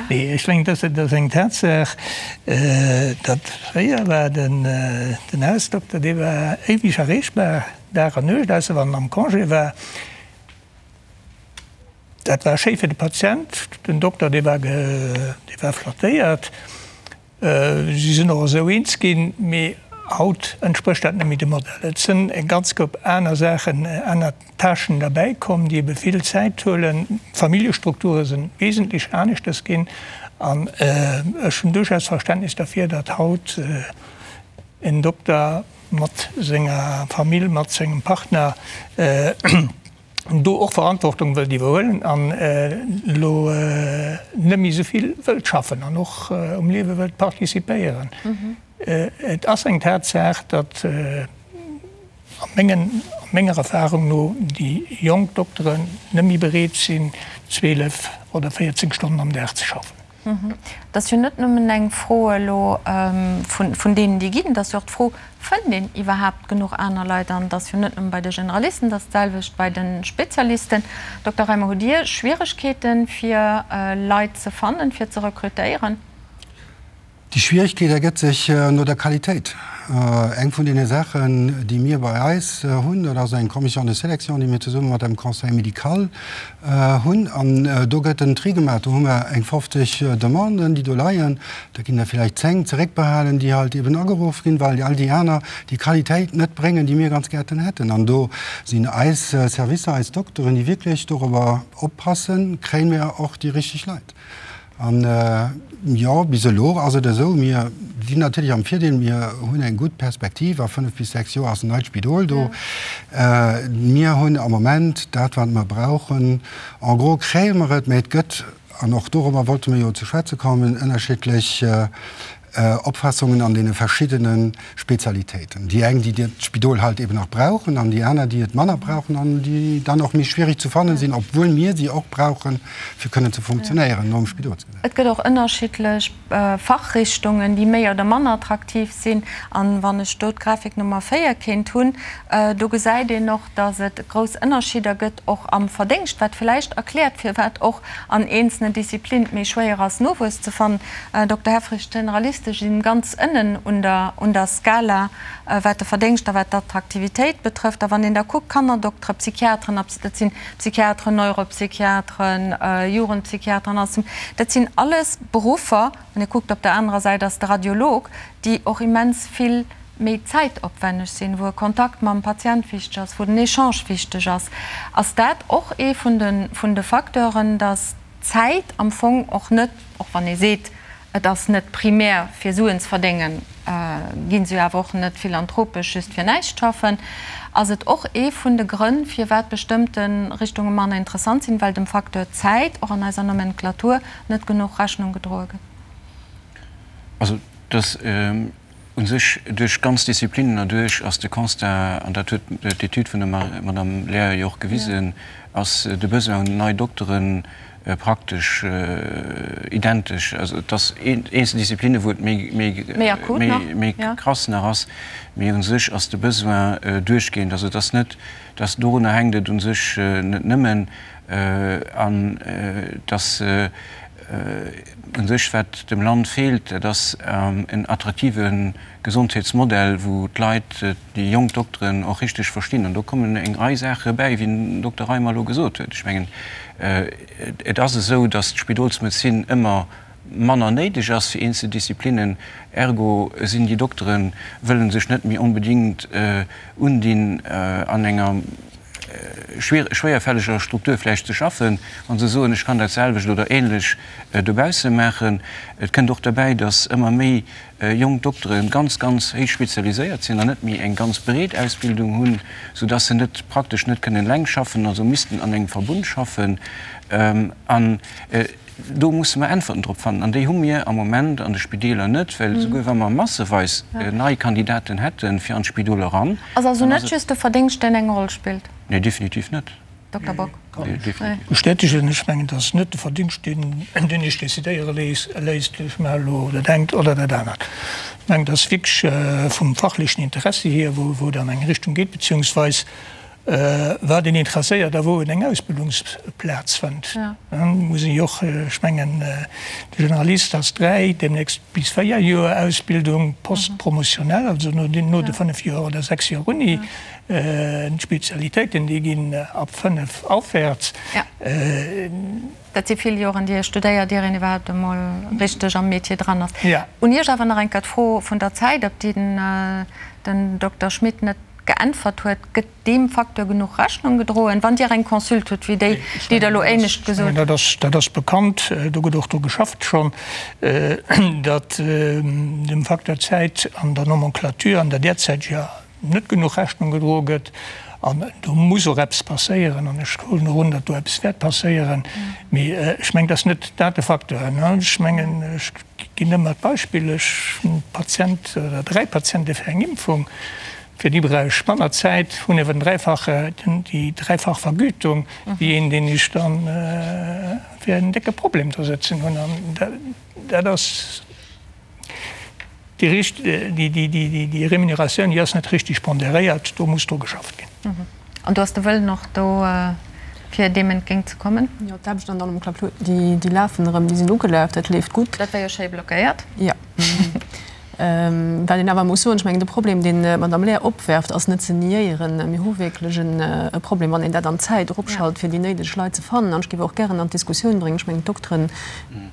Nee, ech mengen, dat ass eng Tatsaach, datt fréier war den Hausdokter, dee war éiweg erreechbar, Dag an Nuecht, ausser wann en am Congé war. Dat war schéi fir de Patient. Den Dokter, dee war, dee war flattéiert. Si sinn och esou eens ginn. Mee haut entsprécht dat net méi dem Modell. Et sinn eng ganz Koup aner Saachen, aner Tâchen derbäi komm, déi ebe vill Zäit huelen. D'Familljestrukture si wesentlech aneschters ginn. An ech hunn duerchaus Verständnis derfir, datt haut en Dokter mat senger Famill, mat sengem Partner, do och Verantwortung wëllt iwwerhuelen an elo net méi esou vill wëllt schaffen an och um Liewe wëllt participéieren. Et ass eng Tatsaach, datt a mengen, a menger Erfahrung no déi jonk Dokteren net méi bereet sinn, 12 oder 14 Stonnen am Dag ze schaffen. Et ass jo net nëmmen eng Fro elo vun deenen, déi ginn, et ass jo och d'Fro, Fënnt een iwwerhaapt genuch aner Leit? An et ass jo net nëmme bei de Generalisten, et ass d'selwecht bei de Spezialisten. Dokter Reimer, hutt Dir Schwieregkeeten, fir Leit ze fannen, fir ze rekrutéieren? Déi Schwieregkeet ergëtt sech no der Qualitéit. Eng vun deene Saachen, déi mir bei eis hunn, dat ass eng Commission de sélection, déi mir zesumme mat dem Conseil médical hunn. An do gëtt en Tri gemaach. Do hu mer eng 50 Demanden, déi do leien. Da ginn der villäicht 10 zeréckbehalen, déi halt eben ageruff ginn, well all déi aner déi Qualitéit net bréngen, déi mir ganz gärten hätten. An do sinn eis Servicer, eis Dokteren, déi wierklech dorobber oppassen, kréie mir och déi richteg Leit. An jo, bis elo ass et esou, mir sinn natierlech am Virdeel, mir hunn eng gutt Perspektiv, a 5 bis 6 Joer ass en neit Spidol do. Mir hunn am Moment dat, wat mer brauchen. En gros kréie mer et, mä et gëtt, an och dorobber wollte mer jo ze schwätze kommen, ënnerschiddlech Opfassungen an deene verschiddene Spezialitéiten. Déi eng, déi d'Spidol halt eben nach brauchen, an déi aner, déi et manner brauchen an déi dann och méi schwierig ze fannen sinn, obwuel mir si och brauchen, fir kënnen ze funktionéieren nom Spidolsgesetz. Et gëtt och ënnerschiddlech Fachrichtungen, déi méi oder manner attraktiv sinn. An wann ech do d'Grafik Nummer 4 kéint hunn, do gesäit een och, dass et grouss Ënnerscheeder gëtt, och am Verdéngscht, wat villäicht erkläert, firwat och an eenzelen Disziplinen et méi schwéier ass, Nowuess ze fannen. Dokter Helfrich, d'Generaliste sinn ganz ënnen un der, un der Skala, wat de Verdéngscht a wat d'Attraktivitéit betrëfft. A wann een da kuckt, Kannerdokteren, Psychiateren, dat sinn Psychiateren, Neuropsychiateren, Jugendpsychiateren, alles, dat sinn alles Beruffer, wann ee kuckt, op der anerer Säit ass de Radiolog, déi och immens vill méi zäitopwänneg sinn, wou e Kontakt mam Patient wichteg ass, wou den Echange wichteg ass. Ass dat och ee vun de, vun de Facteuren, dass d'Zäit am Fong och net, och wann ee seet, et ass net primär fir Suen ze verdéngen, gi se jo awer och net philanthropesch just fir näischt schaffen, ass et och ee vun de Grënn, firwat bestëmmte Richtunge manner interessant sinn, well dem Facteur Zäit och an eiser Nomenclature net genuch Rechnung gedroe gëtt? Also, dass U sech duerch ganz Disziplinnen erduerch ass de Constat, an dat huet d'Etüd vun der Madame Lehr jo och gewisen, ass de Besoin un nei Doktere praktesch identesch. Also et ass eenzel Disziplinne wou et méi krass nach ass, mee u sech ass de Besoin duerchgehend. Also et ass net, dass dorunner hänkt et u sech net nëmmen an dass U sech, wat dem Land feelt, dat ass en attraktive Gesondheetsmodell, wou d'Leit, déi jonk Dokteren och richteg verstinn. An do kommen eng Rei Saache bäi, wéi den Dokter Reimer elo gesot huet. Ech mengen, et ass esou, datt d'Spidolsmedezin ëmmer manner néideg ass fir eenzel Disziplinnen. Ergo sinn déi Dokteren, wëlle sech net méi onbedéngt undinn an enger schwéierfälleger Struktur vläicht ze schaffen, wa se soen, ech kann dat selwecht oder ähnlech dobausse maachen. Et kënnt och derbäi, datt ëmmer méi jonk Doktere ganz, ganz héich spezialiséiert sinn an net méi eng ganz breet Ausbildung hunn, soudatt se net praktesch net kënnen eleng schaffen, also missten an engem Verbund schaffen. An Do musse mer Äntwerten drop fannen, an déi hu mir am Moment an de Spideeler net, well esouguer wa mer masseweis nei Kandidaten hätte fir an d'Spidol eran, Ass also net just de Verdéngscht, deen eng Roll spillt? Nee, definitiv net. Dokter Bock. Bestätegen. Ech mengen, dat ass net de Verdingscht, deen deen Iech decidéiere léisst, ech maache elo dat engt oder dat anert. Ech mengen, dat ass wierklech vum fachlechen Interessi hier, wou et an eng Richtung geet, beziehungsweis wat een interesséiert a wou en eng Ausbildungsplaz fënnt. Muss een jo och, ech mengen, de Generalist ass 3, deemnächst bis 4 Joer Ausbildung post-promotionnelle, also no de 5 Joer oder 6 Joer Uni. D'Spezialitéiten, déi ginn ab 5 aufwärts. Dat si vill Joren, déi ee studéiert, ier een iwwerhaupt emol richteg am Metier dran ass. Un Iech awer nach eng Kéier d'Fro vun der Zäit, op déi den Dokter Schmit net geäntwert huet, Gëtt deem Facteur genuch Rechnung gedroen, wann Dir eng Consulte hutt wéi déi, déi Der elo éinescht gesot hutt? Dat ass bekannt, do gëtt och dru geschafft schonn, datt dem Facteur Zäit an der Nomenclature, an der derzäiteger, net genuch Rechnung gedroe gëtt. An do muss och eppes passéieren. An ech huelen och un, datt do eppes wäert passéieren. Mee ech mengen, et ass net dat de Facteur. Ech mengen, ech ginn ëmmer d'Beispill, ech hunn e Patient oder 3 Patiente fir eng Impfung, fir déi brauch ech manner Zäit, hunn awer den dräifache, déi dräifach Vergütung wéi een, deen ech dann fir en décke Problem do sëtzen hunn. An dat ass. Déi Remuneratioun, déi ass net richtig ponderéiert, do muss dru geschafft ginn. An do ass de Wëllen och do, fir deem entgéint ze kommen? Jo, d'Aarbechten an der Nomenclature, déi lafen erëm, déi sinn ugelaf, dat leeft gutt. Dat war jo schéi blockéiert. Jo. Wat een awer muss soen, ech mengen, de Problem, deen d'Madame Lehr opwerft, ass net ze niéieren. Mir hu wierklech e Problem, wann een dat an d'Zäit eropschalt, fir déi néideg Leit ze fannen. An ech géif och gären an d'Diskussioun bréngen, ech mengen, d'Dokteren,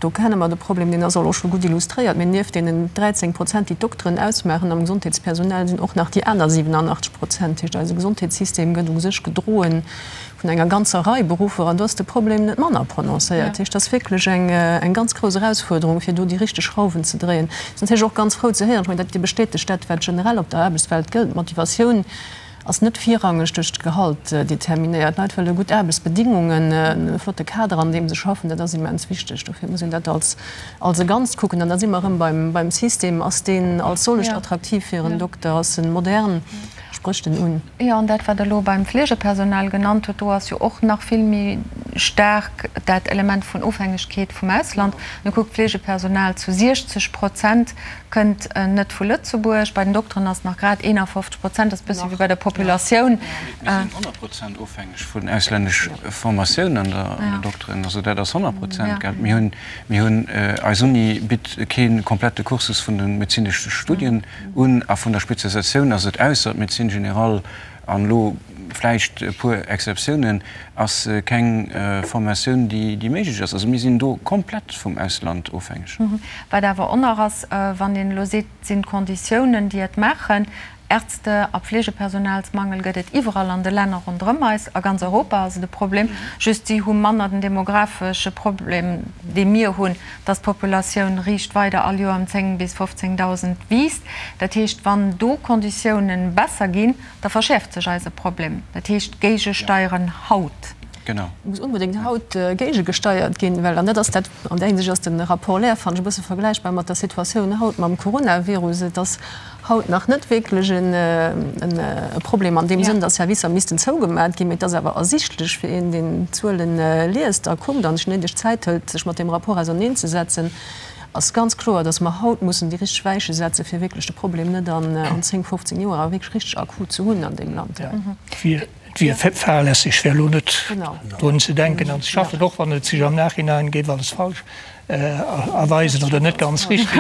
Do kenne mer de Problem, deen ass och elo scho gutt illustréiert. Mee nieft deenen 13 Prozent, déi d'Dokteren ausmaachen am Gesondheetspersonal, sinn och nach déi aner 87 Prozent. Dat heescht, eise Gesondheetssystem gëtt u sech gedroe vun enger ganzer Rei Beruffer. An do ass de Problem net manner prononcéiert. Dat heescht, dat ass wierklech eng ganz grouss Erausfuerderung, fir do déi richteg Schrauwen ze dréien. Ech sinn natierlech och ganz frou ze héieren, ech mengen, dat bestätegt dat, wat generell op der Aarbechtswelt gëllt, D'Motivatioun Ass net virrangeg duerch d'Gehalt determinéiert. D'Leit wëlle gutt Aarbechtsbedingungen, e flotte Kader an deem se schaffen. Dat ass immens wichteg. Dofir muss een dat als als e Ganzt kucken. An da si mer erëm beim beim System. Ass deen als solcht attraktiv fir en Dokter? Ass en modern? Sprécht en un? Jo, an dat, wat Der elo beim Fleegepersonal genannt hutt, do ass jo och nach vill méi staark dat Element vun Ofhängegkeet vum Ausland. Mir kuckt, d'Fleegepersonal zu 60 Prozent Kënnt net vu Lëtzebuerg. Bei den Dokteren ass et nach grad 51 Prozent, dat ass e bëssi wéi bei der Populatioun. Mir sinn 100 Prozent ofhängeg vun auslännesch Formatioun an der Dokteren. Also dat ass 100 Prozent, gell. Mir hunn, mir hunn, eis Uni bitt kee komplette Cursus vun de medezinesche Studien un a vun der Spezialisatioun ass et, ausser d'Médecine générale an elo vläicht e puer Exceptiounen, ass keng Formatioun, déi méiglech ass. Also mir sinn do komplett vum Ausland ofhängeg. Wat awer och nach ass, wann een elo seet, et sinn d'Konditiounen, déi et maachen, Ärzte a Pflegepersonalsmangel gëtt et iwwerall an de Länner ronderëm eis, a ganz Europa ass et e Problem, just si hu manner den demographesche Problem, dee mir hunn, dass d'Populatioun riicht weider all Joer ëm 10 bis 15.000 wiisst. Dat heescht, wann do Konditiounen besser ginn, da verschäerft sech eise Problem. Dat heescht, géigesteieren haut. Genau. Et muss onbedéngt haut géigegesteiert ginn, well, an dat ass dat, an där Hinsicht ass de Rapport Lehr, fannen ech, e bësse vergläichbar mat der Situatioun haut mam Coronavirus, et ass haut nach net wierklech e Problem an deem Sënn, datt Servicer missten zougemat ginn, mee et ass awer ersichtlech fir een, deen d'Zuele liest a kuckt an sech néideg Zäit hëlt, sech mat deem Rapport auserneenzesetzen, ass ganz kloer, datt mer haut mussen déi richteg Weiche setzen, fir wierklech de Problem net an 10, 15 Joer awer wierklech richteg akut ze hunn an deem Land. Et wier fahrlässeg, fir elo net drun ze denken an ze schaffen, och wann et sech am Nachhinein géif alles falsch erweisen oder net ganz richtig.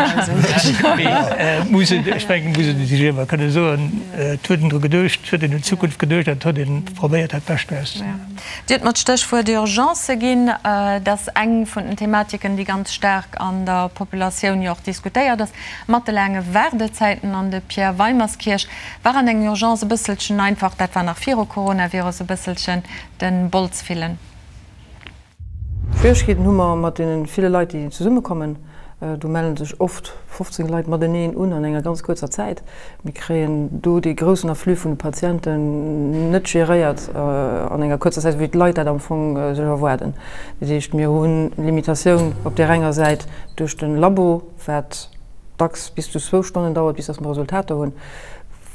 Mee et muss een, ech mengen, et muss ee sech ëmmer kënne soen, et huet een dru geduecht, et huet een un d'Zukunft geduecht an et huet ee probéiert, dat Bescht draus ze maachen. Dir hutt mer d'Stéchwuert Urgence ginn. Dat ass eng vun den Thematiken, déi ganz staark an der Populatioun jo och diskutéiert ass, mat de laange Waardezäiten. An de Pierre Weimerskirch War an eng Urgence e bësselchen einfach, dat war nach viru Coronavirus, e bësselchen den Bols fillen. Schwieregkeeten hu mer mat deene ville Leit, déi zesummekommen. Do melle sech oft 15 Leit mateneen un an enger ganz kuerzer Zäit. Mir kréien do dee groussen Afflux vun de Patienten net geréiert an enger kuerzer Zäit, wéi d'Leit dat am Fong sech erwaarden. Dat heescht, mir hu Limitatioun op där enger Säit duerch de Labo, wat dacks bis zu zwou Stonnen dauert, bis datt mer Resultater hunn.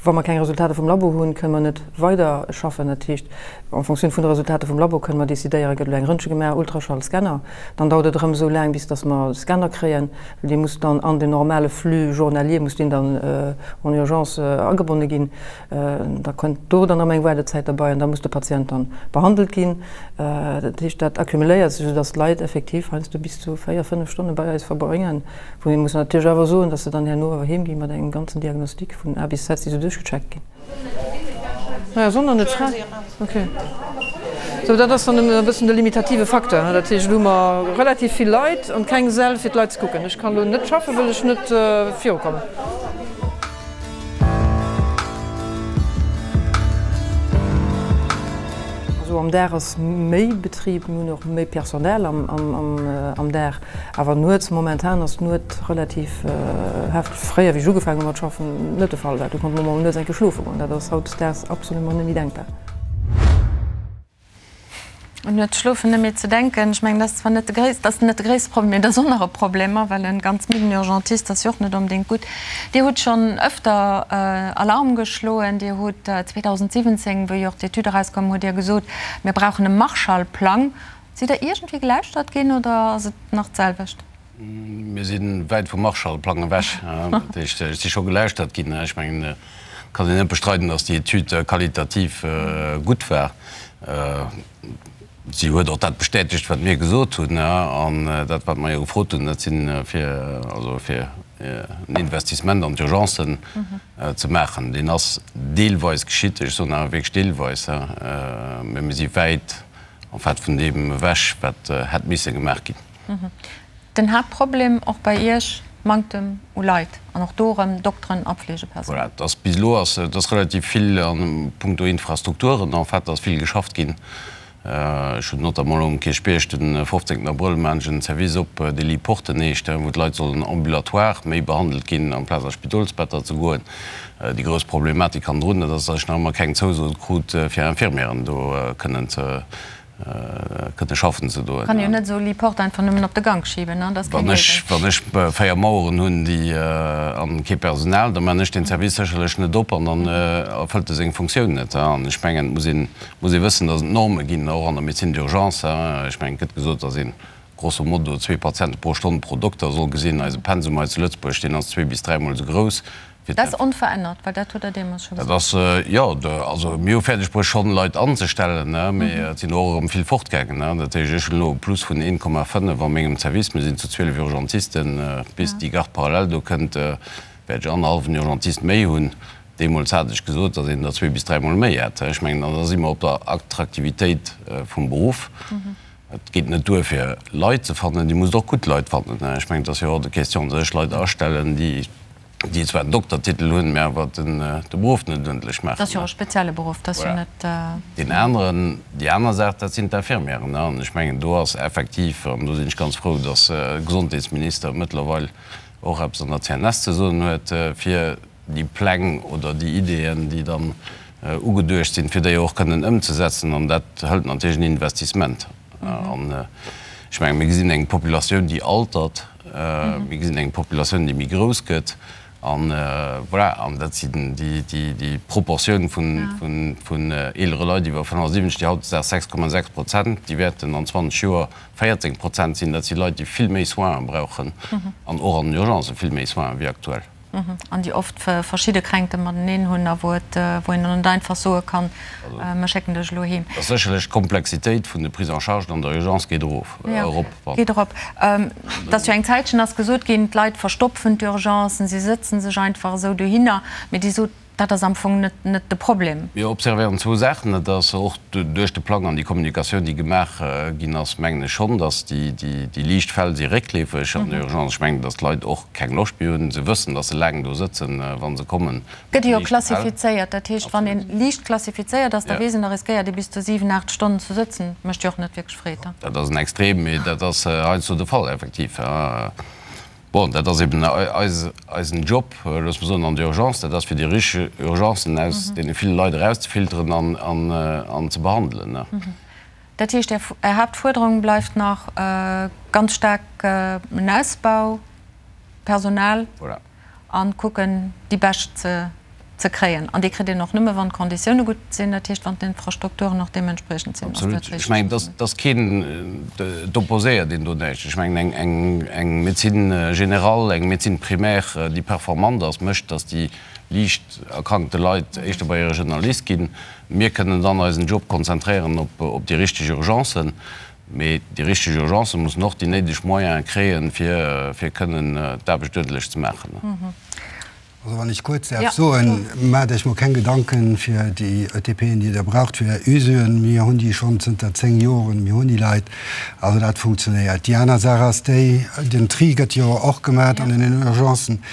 Wa mer keng Resultater vum Labo hunn, kënne mer net weider schaffen. Dat heescht, en Fonctioun vun de Resultater vum Labo kënne mer decidéieren, gëtt elo eng Röntge gemaach, Ultraschall, Scanner. Dann dauert et erëm esou laang, bis datt mer de Scanner kréien, well dee muss dann an den normale Flux journalier muss deen dann en urgence agebonne ginn. Da kënnt do dann erëm eng Waardezäit derbei an da muss de Patient dann behandelt ginn. Dat heescht, dat accumuléiert sech, esou datt d'Leit effektiv heiansdo bis zu 4, 5 Stonne bei eis verbréngen. Wou ee muss natierlech awer soen, dass se dann herno awer heem gi mat engem ganzen Diagnostic vun A bis Z, déi se duerchgecheckt ginn. Naja, Sonner net fräi. Okay. Sou, dat ass dann e bëssen de limitative Facteur. Dat heescht, elo hu mer relativ vill Leit an keng Säll fir d'Leit ze kucken. Ech kann elo net schaffen, wëll ech net virukommen. Also am Dag ass méi Betrib, mir hunn och méi Personnel am Dag, awer nuets, momentan ass d'Nuet relativ hefteg. Fréier, wéi ech ugefaangen hu mat schaffen, net de Fall war. Do konnte mer mol nuets eng Kéier schlofe goen, dat ass hautdesdaags absolument net méi denkbar. Un nuets schlofen net méi ze denken. Ech mengen, dat ass zwar net de gréisst, dat ass net de gréisste Problem, mee dat ass och nach e Problem, well e ganz midden Urgentist ass jo och net onbedéngt gutt. Dir hutt schonn ëfter Alarm geschloen. Dir hutt 2017, wéi och d'Etüd erauskoum, hutt Dir gesot, mir brauchen e Marshallplang. Sidd Der iergendwéi gelauschtert ginn oder ass et nach d'selwecht? Mir si wäit vum Marshallplang ewech. Dat heescht, ech si scho gelauschtert ginn. Ech mengen, et kann een net bestreiden, datt déi Etüd qualitativ gutt war. Si huet och dat bestätegt, wat mir gesot hunn. An dat, wat mer jo gefrot hunn, dat si fir, also fir en Investissement an d'Urgencen ze maachen. Deen ass deelweis geschitt, ech soen awer wierklech deelweis, mä mir si wäit en fait vun deem ewech, wat hätt misse gemaach ginn. Den Haaptproblem och bei Iech, Manktem u Leit an och do erëm Dokteren a Fleegepersonal. Voilà, et ass bis elo ass et ass relativ vill a puncto Infrastrukturen en fait ass vill geschafft ginn. Ech hunn notamment elo um Kierchbierg de 15 Abrëll maachen ech en Service op, dee Lit Porte heescht, wou d'Leit sollen ambulatoire méi behandelt ginn amplaz a Spidolsbetter ze goen. Déi grouss Problematik hannendrun, dat ass, datt ech nach ëmmer keng Zouso krut fir Infirmieren do kënnen ze kënne schaffen ze doen. Kann jo net esou Lit-Porte einfach nëmmen op de Gank schiben, dat ass keng Léisung. Wann ech 4 Maueren hunn, déi an kee Personal, da man ech deen Service sécherlech net op an dann erfëllt e seng Funktioun net. An ech mengen, et muss een, muss ee wëssen, datt et Norme ginn, och an der Médecine d'urgence. Ech mengen, et gëtt gesot, datt een grosso modo zwee Patiente pro Stonn pro Dokter soll gesinn. Eise Pensum hei zu Lëtzebuerg, deen ass zwee bis dräimol esou grouss. Dat ass onverännert, well dat hutt Der deemools scho gesot. Dat ass, jo, also mir hu fäerdeg bruecht schonn Leit anzestellen, mee et sinn och erëm vill fortgaangen. Dat heescht, ech hunn elo e Plus vun 1,5 a mengem Service. Mir sinn zu 12 Urgentisten. Bis déi Garde parallèle do kënnt, wäert ech annerhallwen Urgentist méi hunn. Deemools hat ech gesot, datt een der zwee bis dräimol méi hätt. Ech mengen, an da si mer op der Attraktivitéit vum Beruff. Et geet net duer fir Leit ze fannen, Dir musst och gutt Leit fannen. Ech mengen, et ass jo hors de question, datt ech Leit astellen, déi déi zwar en Doktertitel hunn, mä awer de Beruff net uerdentlech maachen. Dat ass jo och e spezielle Beruff, dat ass jo net. Deen aneren, déi aner Saach, dat sinn d'Infirmièren. An ech mengen, do ass effektiv, an do sinn ech ganz frou, datt de Gesondheetsminister mëttlerweil och eppes an der CNS ze soen huet, fir déi Pläng oder déi Ideeën, déi dann ugeduecht sinn, fir déi och kënnen ëmzesetzen. An dat hëlt natierlech en Investissement. An ech mengen, mir gesinn eng Populatioun, déi altert, mir gesinn eng Populatioun, déi méi grouss gëtt. An voilà, an dat sinn déi Proportioun vun eelere Leit iwwer 75, déi hautdesdaags 6,6 Prozent, déi wäerten an 20 Joer 14 Prozent sinn. Dat si Leit, déi vill méi Soinen brauchen an och an den Urgencë vill méi Soinen wéi aktuell. An déi oft verschidde Kränkte mateneen hunn a wou et, wou een dann net einfach soe kann, mir schécken dech elo heem. Ass sécherlech d'Komplexitéit vun de Prises en charge an der Urgence geet erof, erop. Jo, geet erop. Et ass jo eng Zäitchen ass gesot ginn, d'Leit verstopfen d'Urgencen, si sëtze sech einfach esou dohinner. Mee Dir sot, Dat ass am Fong net net de Problem. Mir observéieren zwou Saachen. Dat ass och duerch de Plang an déi Kommunikatioun, déi gemaach ginn ass, mengen ech schonn, datt déi déi liicht Fäll si réckleefeg an der Urgence. Ech mengen, datt d'Leit och keng Loscht méi hunn. Se wëssen, datt se laang do sëtzen, wa se kommen. Gëtt jo klassifizéiert. Dat heescht, wann ee liicht klassifizéiert ass, da weess een, da riskéiert ee bis zu 7, 8 Stonnen ze sëtzen. Mécht jo och net wierklech Freed. Dat ass en Extrem, mee dat ass heiansdo de Fall, effektiv. Bon, dat ass eben eisen Job, loosse mer soen, an der Urgence, dat ass fir déi richteg Urgencen aus deene ville Leit erauszefilteren an ze behandelen. Dat heescht, Är Haaptfuerderung bleift nach ganz staark en Ausbau, Personal an kucken, déi Bescht ze. ze kréien. An dee kritt een och nëmme wann d'Konditioune gutt sinn, dat heescht wann d'Infrastrukturen och deementspriechend sinn. Ass dat Absolut. Ech mengen, et ass keen, et opposéiert een do näischt. Ech mengen, eng Médecine générale, eng Médecine primaire, déi performant ass, mécht, datt déi liicht erkrankte Leit éischter bei hire Generalist ginn. Mir kënnen dann eisen Job konzentréieren op déi richteg Urgencen. Mee déi richteg Urgencen mussen och déi néideg Moyene kréien, fir kënnen d'Aarbecht uerdentlech ze maachen. Also wann ech kuerz däerf soen, Maacht Iech mol keng Gedanken fir déi ETPen, déi Der braucht fir Är Usuen. Mir hunn déi schonn zënter 10 Joren. Mir hunn déi Leit. Also dat funktionéiert. Déi aner Saach ass déi, den Tri gëtt jo och gemaach an den Urgencen.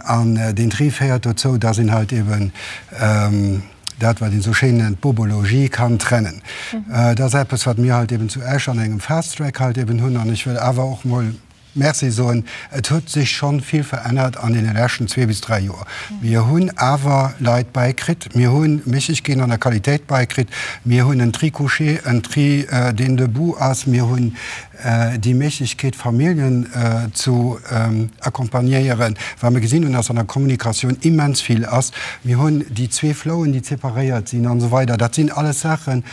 An deen Tri féiert dozou, dass een halt eben dat, wat een esou schéin nennt, Bobologie, kann trennen. Dat ass eppes, wat mir halt eben zu Esch an engem Fast Track halt eben hunn. An ech wëll awer och mol Merci soen. Et huet sech schonn vill verännert an deene leschten zwee bis dräi Joer. Mir hunn awer Leit bäikritt, mir hu Méiglechkeeten an der Qualitéit bäikritt, mir hunn en Tri couché, en Tri deen debout ass, mir hunn déi Méiglechkeet Familljen zu accompagnéieren, well mir gesinn hunn, dass an der Kommunikatioun immens vill ass. Mir hunn déi zwee Flouen, déi separéiert sinn an esou weider. Dat sinn alles Saachen,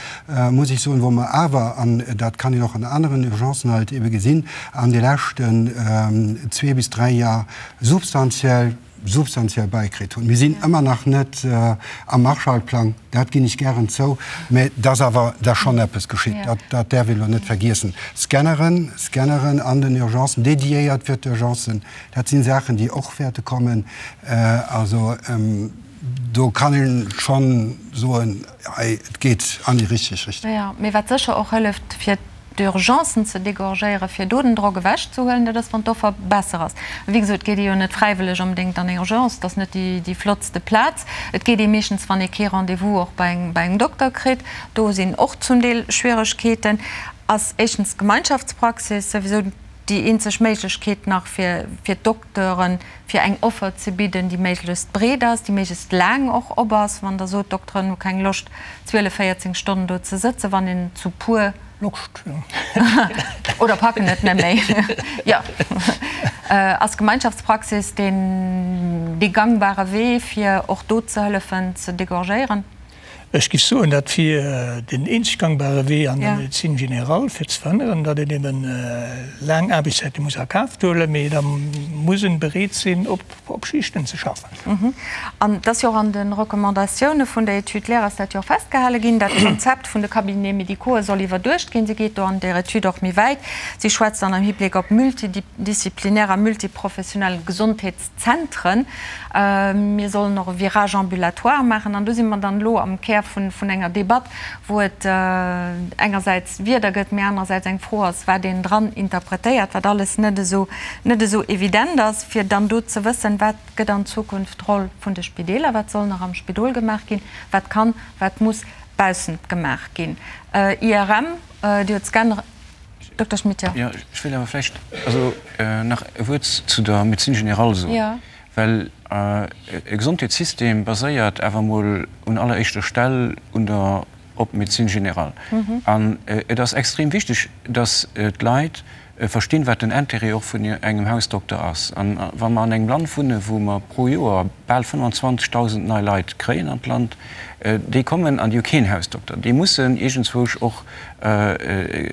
muss ech soen, wou mer awer, an dat kann een och an aneren Urgencen halt ebe gesinn, an de leschten zwee bis dräi Jar substantiell, substantiell bäikritt hunn. Mir sinn ëmmer nach net am Marshallplang, dat ginn ech gären zou, mä et ass awer da schonn eppes geschitt, dat, dat däerf een elo net vergiessen. Scanneren, Scanneren an den Urgencen, dédiéiert fir d'Urgencen, dat sinn Saachen, déi och wäerte kommen. Also do kann ee schonn soen, hei, et geet an déi richteg Richtung. Jo, mee wat sécher och hëlleft, fir d'Urgencen ze dégorgéieren, fir do den Drock ewechzehuelen, dat ass, wann d'Offer besser ass. A wéi gesot, et geet ee jo net fräiwëlleg onbedéngt an eng Urgence, et ass net déi flottste Plaz. Et geet ee meeschtens, wann ee kee Rendez-vous och bei engem Dokter kritt. Do sinn och zum Deel Schwieregkeeten. Ass éischtens d'Gemeinschaftspraxis souwisou déi eenzeg Méiglechkeet nach fir d'Dokteuren, fir eng Offer ze bidden, déi méiglechst breet ass, déi méiglechst laang och op ass. Wann Der sot, d'Dokteren hu keng Loscht, 12, 14 Stonnen do ze sëtzen, wann een zu puer. Loscht, jo. Oder packen et net méi, jo. Ass Gemeinschaftspraxis deen dee gangbare Wee, fir och do ze hëllefen ze dégorgéieren? Ech géif soen, dat wier den eenzeg gangbare Wee an der Médecine générale, fir ze verhënneren, datt een eben laang Aarbechtszäite muss a Kaf huelen, mee da muss en bereet sinn, op op Schichten ze schaffen. An et ass jo och an de Recommandatioune vun der Étude Lehre ass dat jo och festgehale ginn, dat d'Konzept vun de Cabinets médicaux'e soll iwwerduecht ginn. Si geet do an där Etüd och méi wäit. Si schwätzt dann am Hibléck op multidisziplinär a multiprofessionell Gesondheetszentren. Mir sollen och e Virage ambulatoire maachen. An do si mer dann elo am Kär vun enger Debatt, wou et engersäits Wierder gëtt, mee anerersäits eng Fro ass, wat een dran interpretéiert, wat alles net esou, net esou evident ass, fir dann do ze wëssen, wat gëtt an Zukunft d'Roll vun de Spideeler, wat soll nach am Spidol gemaach ginn, wat kann, wat muss baussent gemaach ginn. IRM, Dir hutt d'Scanner, Dokter Schmit, jo. Jo, ech wéilt awer vläicht also nach e Wuert zu der Médecine générale soen, well e Gesondheetssystem baséiert awer emol un alleréischter Stell un der op d'Médecine générale. An et ass extrem wichteg, dass d'Leit verstinn, wat den Intérêt och vun engem Hausdokter ass. An wa mer an engem Land wunnen, wou mer pro Joer bal 25.000 nei Leit kréien an d'Land, déi kommen an déi hu keen Hausdokter, déi mussen iergendzwousch och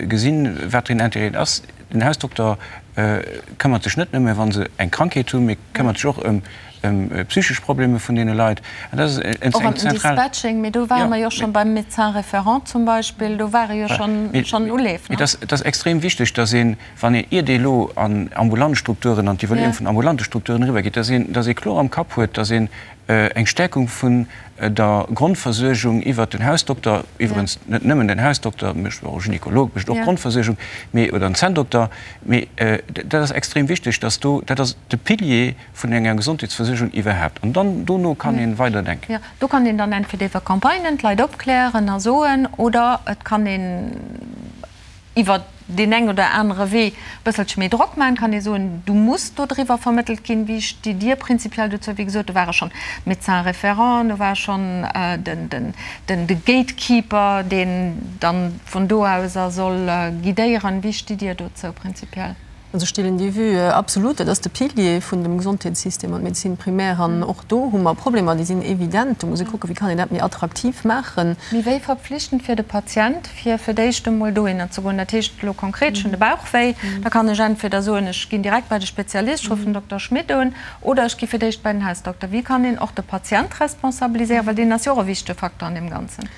gesinn, wat den Intérêt ass. Den Hausdokter këmmert sech net nëmme, wa se eng Krankheet hunn, mee këmmert sech och ëm psychesch Problemer vun deene Leit. An dat ass eng zentral. Och ëm den Dispatching, mee do ware mer jo schonn beim Médecin référent zum Beispill, do ware jo schonn Uleef. Mee et ass extrem wichteg, dass een, wann een, iert ee elo an ambulant Strukturen, an d'Evaluierung vun ambulante Strukturen eriwwergeet, dass een, dass ee kloer am Kapp huet, dass een eng Stärkung vun der Grondversuergung iwwert den Hausdokter, iwwerens net nëmmen den Hausdokter, mécht och e Gynekolog, mécht och Grondversuergung, mee, oder en Zänndokter, mee dat ass extrem wichteg, dass do, dat ass de Pilier vun enger Gesondheetsversuergung iwwerhaapt. An dann dono kann ee weiderdenken. Jo, do kann een dann entweder iwwer Campagnen d'Leit opklären a soen, oder et kann een iwwer deen eng oder anere Wee e bësselche méi Drock maachen, kann ee soen, du muss do driwwer vermëttelt ginn. Wéi stitt Dir prinzipiell dozou? Wéi gesot, do ware schonn d'Médecins référents, do war schonn de Gatekeeper, deen dann vun do aus a soll guidéieren. Wéi stitt Dir dozou prinzipiell? Also ech deelen déi Vue absolut. Dat ass de Pilier vun dem Gesondheetssystem an d'Médecine primaire. An och do hu mer Problemer, déi sinn evident. Do muss ee kucken, wéi kann een dat méi attraktiv maachen. Mee wéi verpflichtend fir de Patient, fir fir d'éischt emol dohinner ze goen? Dat heescht elo konkret, ech hunn de Bauchwéi, da kann ech entweder soen, ech ginn direkt bei de Spezialist, ech ruffen den Dokter Schmit un, oder ech gi fir d'éischt bei den Hausdokter. Wéi kann een och de Patient responsabiliséieren, well deen ass jo och e wichtege Facteur an deem Ganzen?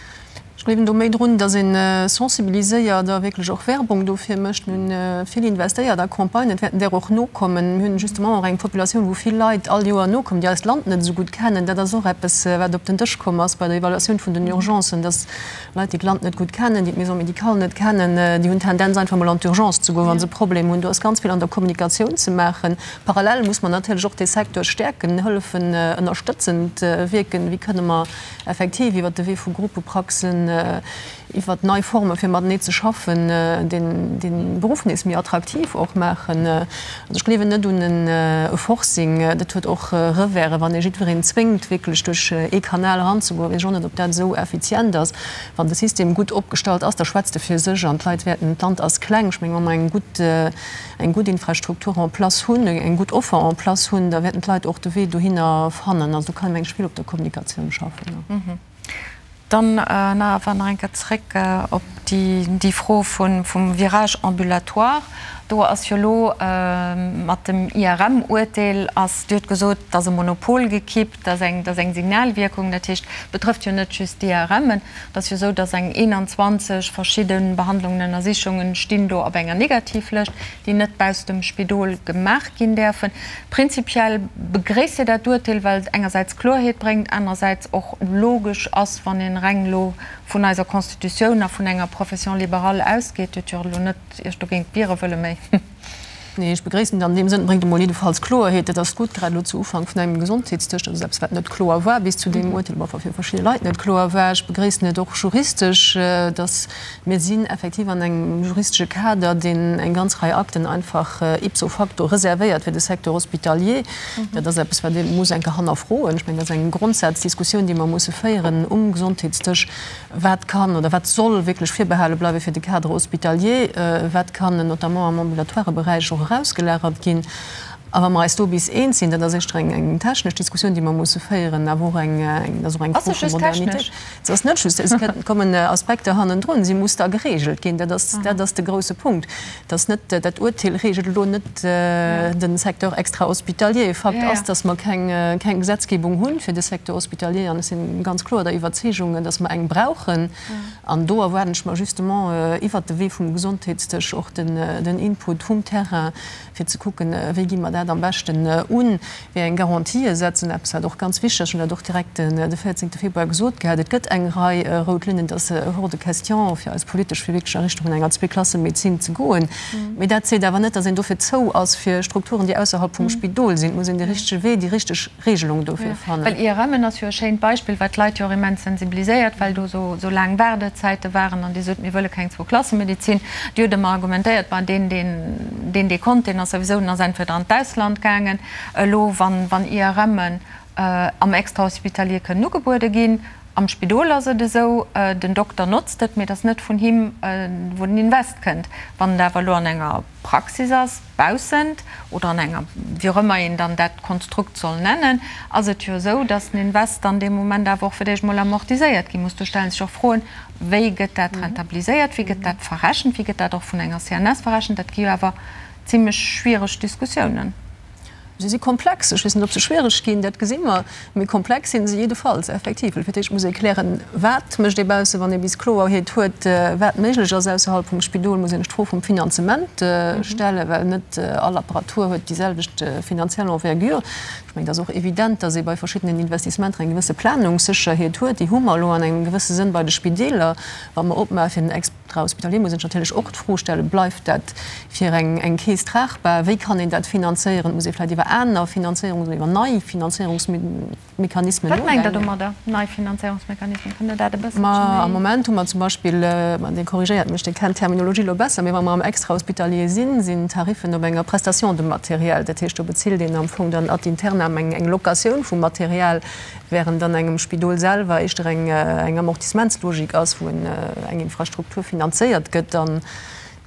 Ech gleewen do méi drun, datt ee sensibiliséiert a wierklech och Werbung dofir mécht. Mir hunn vill investéiert a Campagnen, et wäerten där och nokommen. Mir hunn justement och eng Populatioun, wou vill Leit all Joer nokommen, déi eist Land net esou gutt kennen. Dat ass och eppes, wat op den Dësch komm ass bei der Evaluatioun vun den Urgencen, datt Leit, déi d'Land net gutt kennen, déi d'Maison médicale net kennen, déi hunn d'Tendenz einfach mol an d'Urgence ze goen, wa se e Problem hunn. Do ass ganz vill an der Kommunikatioun ze maachen. Parallel muss mer natierlech och dee Secteur stäerken, hëllefen, ënnerstëtzend wierken. Wéi kënne mer Effektiv, iwwert de Wee vu Gruppepraxen, iwwert nei Forme fir matenee ze schaffen, dee Beruff nees méi attraktiv och maachen. Also ech gleewen net un e Forcing. Dat huet och Reversen, wann ee jiddwereen zwéngt, wierklech duerch ee Kanal eranzegoen. Weess ech och net, ob dat esou effizient ass. Wann de System gutt opgestallt ass, da schwätzt e fir sech an d'Leit wäerten, d'Land ass kleng, ech mengen, wa mer eng gutt, eng gutt Infrastruktur en place hunn, eng gutt Offer en place hunn, da wäerten d'Leit och de Wee dohinner fannen. Also do kann ee mengen ech vill op der Kommunikatioun schaffen. Dann nach awer nach eng Kéier zréck op déi Fro vum Virage ambulatoire. Do ass jo elo mat dem IRM-Uerteel ass, Dir hutt gesot, et ass e Monopol gekippt, et ass eng, et ass eng Signalwierkung, dat heescht, betrëfft jo net just d'IRMen. Et ass jo esou, dass eng 21 verschidde Behandlungen, Ënnersichungen stinn do op enger Negativlëscht, déi net bausst dem Spidol gemaach ginn däerfen. Prinzipiell begréisst Dir dat Urteel, well et engersäits Kloerheet bréngt, anerersäits och logesch ass, wann een reng elo vun eiser Constitutioun a vun enger Profession libérale ausgeet. Dir hutt jo elo net Iech dogéint wiere wëlle méi. Nee, ech begréissen et an deem Sënn. Et bréngt emol jiddefalls Kloerheet. Dat ass gutt, grad elo zu Ufank vun engem Gesondheetsdësch. Dat ass eppes, wat net kloer war bis zu deem Urteel, enfin fir verschidde Leit net kloer war. Ech begréissen et och juristesch, dass mir sinn effektiv an engem juristesche Kader, deen eng ganz Rei Akten einfach ipso facto reservéiert fir de Secteur hospitalier. Dat ass eppes, wat ee muss eng Kéier hannerfroen. Ech mengen, dat ass eng Grondsaazdiskussioun, déi mer musse féieren um Gesondheetsdësch. Wat kann oder wat soll wierklech virbehale bleiwe fir de Cadre hospitalier? Wat kann notamment am ambulatoire Beräich och erausgelagert ginn? A wa mer eis do bis eens sinn, dat ass éischter eng technesch Diskussioun, déi mer musse féieren, awer och eng, dat ass och eng Fro vu Modernitéit. Se ass net just, et kommen Aspekter hannendrun, si muss da geregelt ginn. Dat ass, dat ass de grouse Punkt. Dass net, dat Urteel regelt elo net de Secteur extra-hospitalier. Fakt ass, dass mer keng, keng Gesetzgebung hu fir de Secteur hospitalier. An ech si ganz kloer der Iwwerzeegung, dass mer eng brauchen. An do erwaarden ech mer justement iwwert de Wee vum Gesondheetsdësch och den, den Input vum Terrain, fir ze kucken, wéi gi mer dat am beschten un, wéi eng Garantië setzen, eppes wat och ganz wichteg ass, ech hunn dat och direkt de 14 Februar gesot gehat, et gëtt eng Rei rout Linnen, et ass hors de question fir eis politesch fir wierklech a Richtung vun enger Zweeklassemedezin ze goen. Mee dat seet awer net, datt een dofir zou ass fir Strukturen, déi ausserhalb vum Spidol sinn. Et muss een de richtege Wee, déi richteg Regelung dofir fannen. Well IRMen ass jo e schéint Beispill, wat d'Leit jo och immens sensibiliséiert, well do esou laang Waardezäite waren an déi sot, mir wëlle keng Zwou-Klasse-Medezin. Déi huet ëmmer argumentéiert, ma deen, deen dee konnt, deen ass souwisou, deen ass entweder an d'Ausland gaangen. Elo, wann, wann IRMen am Extrahospitalier kënnen ugebuede ginn, am Spidol ass et esou, den Dokter notzt et, mee et ass net vun him, wou den Invest kënnt. Wann et awer elo an enger Praxis ass, baussent oder an enger, wéi och ëmmer een dann dat Konstrukt soll nennen, ass et jo esou, dass den Invest dann dee Moment awer och fir d'éischt emol amortiséiert gi muss. Do stelle sech och Froen, Wéi gëtt dat rentabiliséiert, wéi gëtt dat verrechent, wéi gëtt dat och vun enger CNS verrechent? Dat gi jo awer zimlech schwiereg Diskussiounen. Se si komplex. Ech weess net, ob se schwiereg ginn, dat gesi mer. Mee komplex si se jiddefalls, effektiv. Well fir d'éischt muss ee klären, Wat mécht ee bausse? Wann ee bis Kloerheet huet, wat méiglech ass ausserhalb vum Spidol, muss een sech d'Fro vum Finanzement stellen, well net all Apparatur huet déi selwecht finanziell Envergure. Ech mengen, et ass och evident, dass ee bei verschiddenen Investissementer eng gewësse Planungssécherheet huet. Déi hu mer elo an engem gewësse Sënn bei de Spideeler, wa mer opmaache fir den Extrahospitalier, muss een sech natierlech och d'Fro stellen, Bleift dat fir eng Keess tragbar? Wéi kann een dat finanzéieren? Muss ee vläicht iwwer aner Finanzéierungs oder iwwer nei Finanzéierungsmechanismen nodenken? Wat mengt Der domadder, nei Finanzéierungsmechanismen? Kënnt Der dat e bësselche méi. Am Moment hu mer zum Beispill, ma Dir korrigéiert mech, Dir kennt d'Terminologie elo besser, mee wa mer am Extrahospitalier sinn, sinn d'Tariffen op enger Prestation de matériel. Dat heescht, do bezilt een am Fong dann ad internam eng Locatioun vum Material, während an engem Spidol selwer éischter eng Amortissementslogik ass, wou eng Infrastruktur finanzéiert gëtt.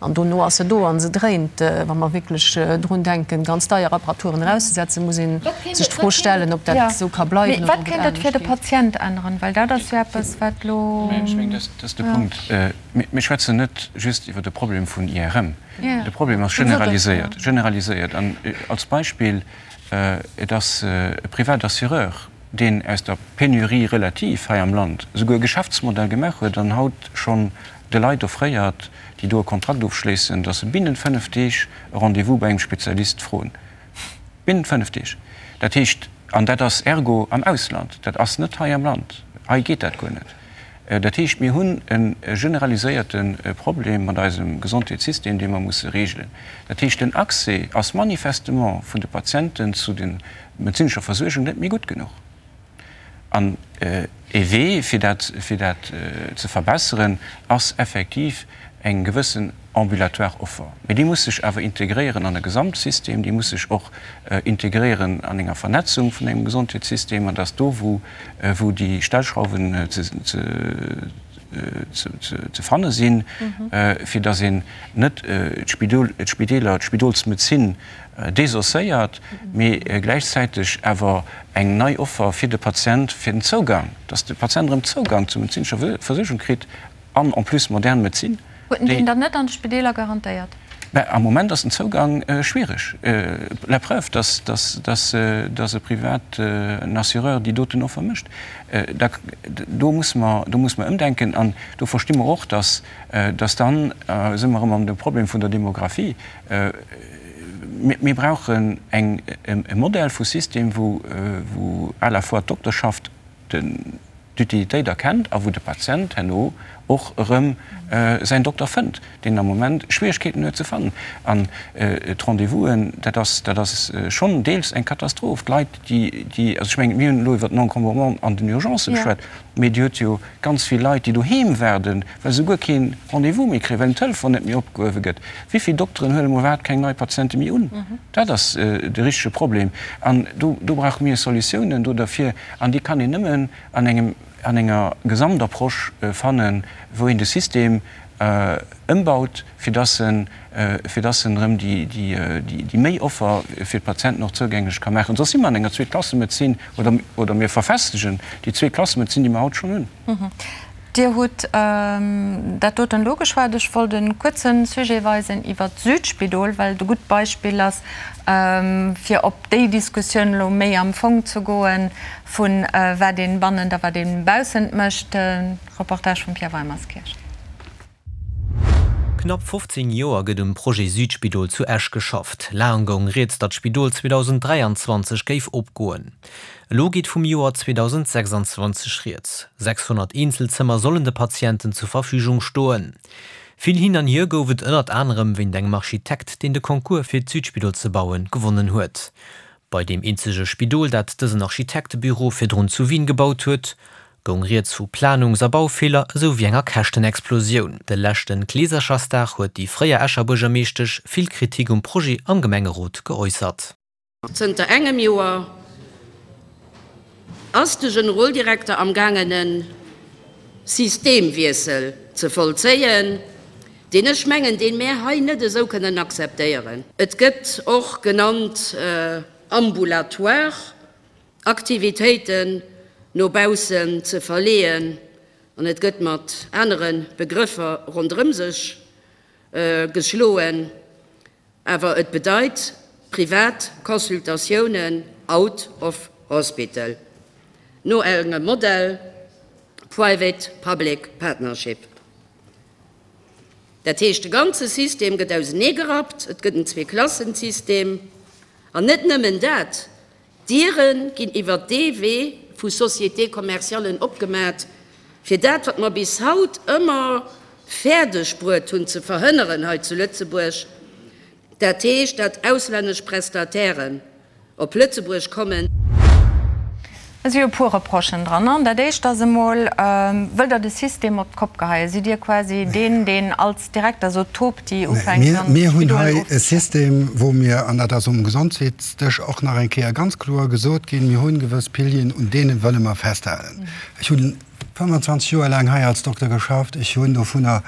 An dono ass se do a se dréint. Wa mer wierklech drun denken, ganz deier Apparaturen erauszesetzen, muss ee sech d'Fro stellen, ob dat esou ka bleiwen oder ob et anescht geet. Wat kéint dat fir de Patient änneren? Well dat ass jo eppes, wat elo. Ech mengen, dat ass de Punkt. Mir schwätzen net just iwwer de Problem vun IRM. De Problem ass generaliséiert, generaliséiert. An als Beispill, Et ass e privat Assureur, deen aus der Pénurie relative hei am Land esouguer e Geschäftsmodell gemaach huet an haut schonn de Leit offréiert, déi do e Kontrakt ofschléissen, datt se binnent 5 Deeg e Rendez-vous bei engem Spezialist froen. Binnent 5 Deeg. Dat heescht, an dat ass ergo am Ausland, dat ass net hei am Land. Hei geet dat guer net. Dat heescht, mir hunn e generaliséierte Problem mat eisem Gesondheetssystem, dee mer musse regelen. Dat heescht, den Accès ass manifestement vun de Patienten zu der medezinescher Versuergung net méi gutt genuch. An ee Wee, fir dat, fir dat ze verbesseren, ass effektiv eng gewëssen ambulatoire Offer. Mee déi muss sech awer integréieren an e Gesamtsystem, déi muss sech och integréieren an enger Vernetzung vun engem Gesondheetssystem, an dass do, wou, wou déi Stellschrauwen ze, ze, ze fanne sinn, fir dass een net d'Spidol, d'Spideeler, d'Spidolsmedezin desosséiert, mee gläichzäiteg awer eng nei Offer fir de Patient, fir den Zougang, dass de Patient erëm Zougang zur medezinescher Versuergung kritt an en plus modern Medezin. Huet en deen dann net an de Spideeler garantéiert? Mä am Moment ass den Zougang schwiereg. La preuve, dass, dass, dass, dass e privaten Assureur déi doten Offer mécht. Da, do musse mer, do musse mer ëmdenken. An do versti mer och, dass, dass dann si mer erëm an dem Problem vun der Demographie. Mir brauchen eng, e Modell vu System, wou, wou à la fois d'Dokterschaft den, d'Utilitéit erkennt a wou de Patient herno och erëm säin Dokter fënnt, deen am Moment Schwierigkeeten huet ze fannen. An d'Rendez-vousen, dat ass, dat ass schonn deels eng Katastroph. D'Leit, déi, déi, also ech mengen, mir hunn elo iwwert den Encombrement an den Urgencë geschwat, mee Dir hutt jo ganz vill Leit, déi doheem waarden, well se guer kee Rendez-vous méi kréien, well den Telefon net méi opgehuewe gëtt. Wéi vill Dokteren huelen emol iwwerhaapt keng nei Patiente méi un? Dat ass de richtege Problem. An do, do brauche mir Solutiounen do derfir. An déi kann een nëmmen an engem, an enger Gesamtapproche fannen, wou een de System ëmbaut, fir dass en, fir dass en erëm déi, déi, déi méi Offer fir d'Patienten och zougänglech ka maachen. Soss si mer an enger Zweeklassemedezin oder, oder mir verfestegen déi Zweeklassemedezin, déi mer haut schonn hunn. Dir hutt dat doten elo geschwat. Ech wollt e kuerze Sujet weisen iwwert d'Südspidol, well et e gutt Beispill ass, fir op déi Diskussioun elo méi am Fong ze goen, vu wat ee bannent a wat ee baussent mécht. Reportage vum Pierre Weimerskirch. Knapp 15 Joer gëtt um Projet Südspidol zu Esch geschafft. Laang goung rieds, datt d'Spidol 2023 géif opgoen. Elo geet vum Joer 2026 rieds. 600 Eenzelzëmmer sollen de Patienten zur Verfügung stoen. Vill Hin an Hier gouf et ënnert anerem wéint engem Architekt, deen de Concours fir d'Südspidol ze bauen, gewonnen huet. Bei deem eenzege Spidol, dat dësen Architektebüro virdrun zu Wien gebaut huet, goung rieds vu Planungs a Baufeeler esou wéi enger Käschtenexplosioun. De leschte Kleeserchersdag huet déi fréier Escher Buergermeeschtesch vill Kritik um Projet am Gemengerot geäussert. Zënter engem Joer ass de Generoldirekter am gaangen e Systemwiessel ze vollzéien, deen ech mengen, deen mär hei net esou kënnen akzeptéieren. Et gëtt och genannt ambulatoire Aktivitéiten no baussen ze verleeën an et gëtt mat anere Begrëffer ronderëm sech geschloen, awer et bedeit privat Consultatiounen out of hospital no engem Modell Private Public Partnership. Dat heescht, de ganze System gëtt auseneegerappt, et gëtt en Zweeklassensystem an net nëmmen dat, D'Diere ginn iwwert dee Wee vu Sociétés commerciallen opgemat, fir dat, wat mer bis haut ëmmer fäerdeg bruet hunn ze verhënneren hei zu Lëtzebuerg, dat heescht, dat auslännesch Prestatairen op Lëtzebuerg kommen. Et si jo e puer Reprochen dran. An dat éischt ass emol, Wëllt Der de System op d'Kopp geheien? Sidd Dir quasi deen, deen als Direkter sot, Topti ufänkt an Mir hunn hei e System, wou mir, an dat ass um Gesondheetsdësch och nach eng Kéier ganz kloer gesot ginn, mir hunn gewëss Pilieren, un deene wëlle mer festhalen. Ech hunn. 25 Joer laang hei als Dokter geschafft. Ech hunn dovunner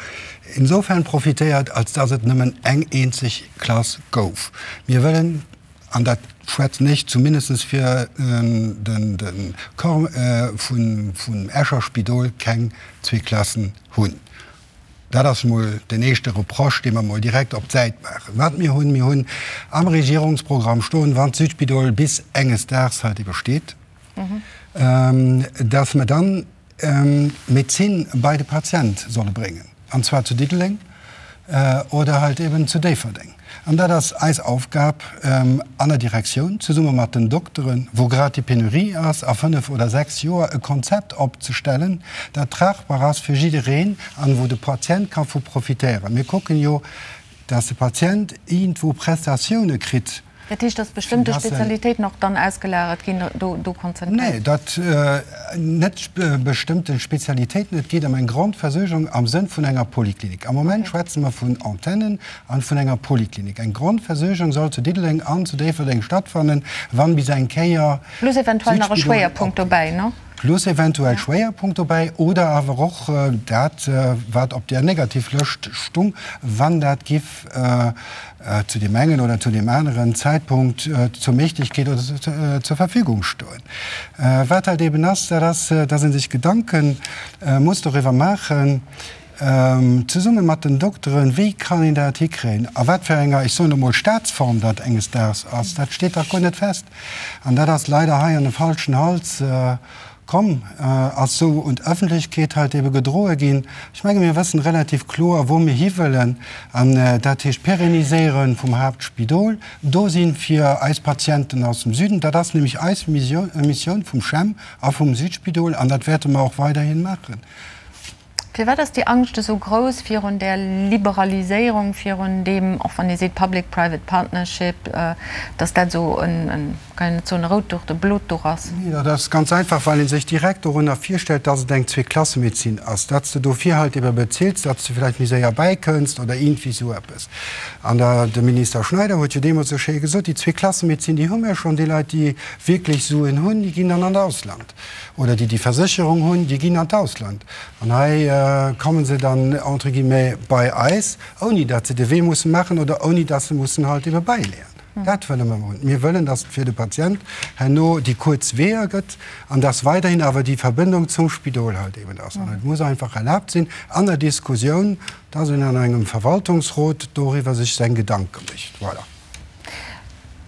insofern profitéiert, als dass et nëmmen eng eenzeg Klass gouf. Mir wëllen, an dat schwätzen ech zumindest fir de Corps vum Escher Spidol, keng zwee Klassen hunn. Dat ass emol den éischte Reproche, dee mer emol direkt op d'Säit maachen. Wat mir hunn, Mir hunn am Regierungsprogramm stoen, wann d'Südspidol bis enges Daags halt ebe steet, dass mer dann d'Medezin bei de Patient solle bréngen, an zwar zu Diddeleng oder halt eben zu Déifferdeng. An dat ass eis Aufgab an der Direktioun, zesumme mat den Dokteren, wou grad déi Penurie ass, a fënnef oder sechs Joer e Konzept opzestellen, dat tragbar ass fir jiddereen an wou de Patient ka vu profitéieren. Mir kucken jo, dass de Patient iergendwou Prestatioune kritt. Dat heescht, dass bestëmmte Spezialitéiten och dann ausgelagert ginn, do konzentréiert? Nee, dat net bestëmmte Spezialitéiten. Et geet ëm eng Grondversuergung am Sënn vun enger Poliklinik. Am Moment schwätze mer vun Antennen an vun enger Poliklinik. Eng Grondversuergung soll zu Diddeleng an zu Déifferdeng stattfannen, wann bis eng Kéier Plus eventuell nach e Schwéierpunkt dobäi, ne? Plus eventuell Schwéierpunkt dobäi oder awer och dat, wat op där Negativlëscht stung, wann dat giff zu deem engen oder zu deem aneren Zäitpunkt zur Méiglechkeet oder zur Verfügung stoen. Wat halt eben ass, dat ass, dass ee sech Gedanke muss doriwwer maachen, zesumme mat den Dokteren, wéi kann een dat hikréien, a wat fir enger, ech soen emol, Staatsform dat enges Daags ass, dat steet dach guer net fest. An dat ass leider hei an e falschen Hals komm, ass sou un d'Öffentlechkeet halt ebe gedroe ginn. Ech menge mir wëssen relativ kloer, wou mir hiwëllen, an dat heescht Pérenniséiere vum Haaptspidol, do si fir eis Patienten aus dem Süden. Dat ass nämlech eis Missioun vum CHEM a vum Südspidol, an dat wäerte mer och weiderhi maachen. Firwat ass déi Angscht esou grouss virun där Liberaliséierung, virun deem, och wann ee seet Public-Private Partnership, datt dat esou en, kann een net soen e rout Duch, e blot Duch ass? Nee, dat ass ganz einfach, well ee sech direkt dorunner virstellt, datt et eng Zweeklassemedezin ass, datt s de dofir halt ebe bezills, datt s de vläicht méi séier bäikënns oder iergendwéi esou eppes. An der, de Minister Schneider huet jo deemools esou schéi gesot, déi Zweeklassemedezin, déi hu mir schonn, déi Leit, déi wierklech Suen hunn, déi ginn dann an d'Ausland. Oder déi déi Versécherung hunn, déi ginn an d'Ausland. An hei komme se dann entre guillemets bei eis, ouni datt se de Wee musse maachen oder ouni datt se mussen halt ebe bäileeën. Dat wëlle mer hunn. Mir wëllen, datt et fir de Patient herno déi kuerz Weeër gëtt an datt weiderhin awer déi Verbindung zum Spidol halt eben ass. An et muss einfach erlaabt sinn an der Diskussioun, datt een an engem Verwaltungsrot doriwwer sech seng Gedanke mécht. Voilà.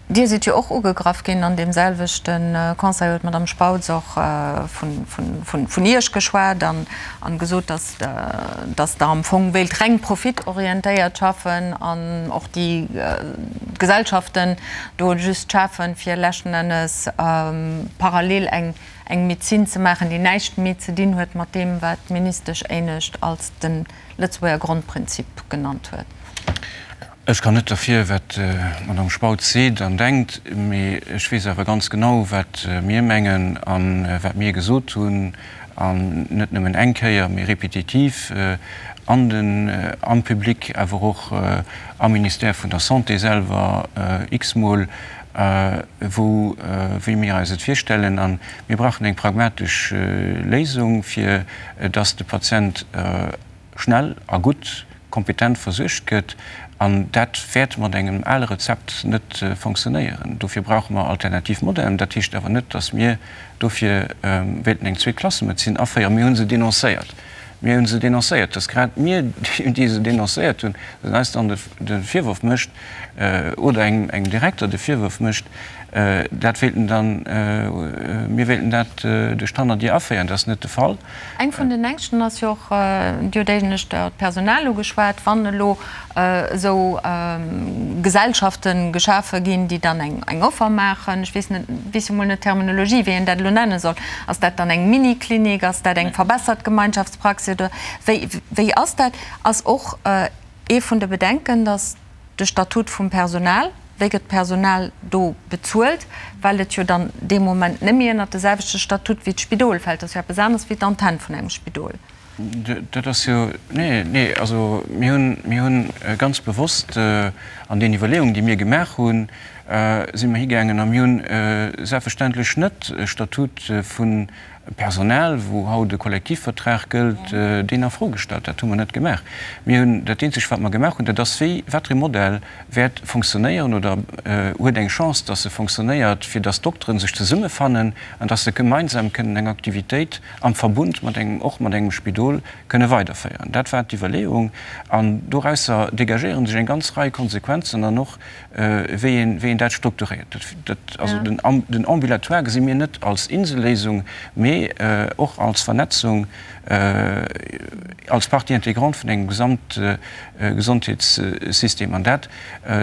Dir sidd jo och ugegraff ginn an deem selwechte Conseil huet d'Madame Spautz och vun Iech geschwat an gesot, datt Der am Fong wéilt reng profitorientéiert schaffen an och déi Gesellschaften do just schafen, fir leschten Ennes parallel eng Medezin ze maachen, déi näischt méi ze dinn huet mat deem, wat d'Ministesch éinescht als de Lëtzebuerger Grondprinzip genannt huet. Ech kann net derfir, wat d'Madame Spautz seet an denkt, mee ech weess awer ganz genau, wat mir mengen a wat mir gesot hunn, an net nëmmen eng Kéier, mee répétitiv an den, am Public, awer och am Ministère vun der Santé selwer x-mol, wou, wéi mir eis et virstellen. A mir brauchen eng pragmatesch Léisung, fir dass de Patient schnell a gutt, kompetent versuergt gëtt, an dat wäert mat engem ale Rezept net fonctionnéieren. Dofir brauche mer alternativ Modellen. Dat heescht awer net, datt mir dofir wéilten eng Zweeklassemedezin aféieren. Mir hu se dénoncéiert. Mir hu se dénoncéiert. Datt grad mir, déi se dénoncéiert hunn, datt eis dann de Virworf mécht oder engem Direkter de Virworf mécht, dat wéilten dann, mir wéilten dat duerch d'Hannerdier aféieren, dat ass net de Fall. Eng vun den Ängschten ass jo och, Dir hutt éinescht d'Personal ugeschwat, wann elo esou Gesellschafte geschafe ginn, déi dann eng Offer maachen, ech weess net, weess jo mol net d'Terminologie, wéi een dat elo nenne soll, ass dat dann eng Miniklinik, ass dat eng verbessert Gemeinschaftspraxis oder wéi, wéi ass dat? Ass och ee vun de Bedenken, datt de Statut vum Personal, wéi gëtt d'Personal do bezuelt, well et jo dann dee Moment net méi ënnert de selwechte Statut wéi d'Spidol fält. Dat ass jo eppes aneres wéi d'Antenn vun engem Spidol. Dat ass jo, nee, nee, also mir hunn, mir hunn ganz bewosst an den Iwwerleeungen, déi mir gemaach hunn. si mer higaangen a mir hunn selbstverständlech net e Statut vun Personal, wou haut e Kollektivvertrag gëllt, deen a Fro gestallt. Dat hu mer net gemaach. Mir hunn dat eenzegt, wat mer gemaach hunn, dat ass, wéi, wat fir e Modell wäert fonctionnéieren oder huet eng Chance, dass e fonctionnéiert, fir dass d'Dokteren sech zesummefannen an dass se gemeinsam kënnen eng Aktivitéit am Verbund mat engem, och mat engem Spidol kënne weiderféieren. Dat war d'Iwwerleeung. An dorausser dégagéiere sech eng ganz Rei Konsequenzen an och, wéi een, wéi een dat strukturéiert. Dat, also den, den Ambulatoire gesi mir net als Inselléisung, mee och als Vernetzung, als Partie intégrante vun engem Gesamtgesondheetssystem. An dat,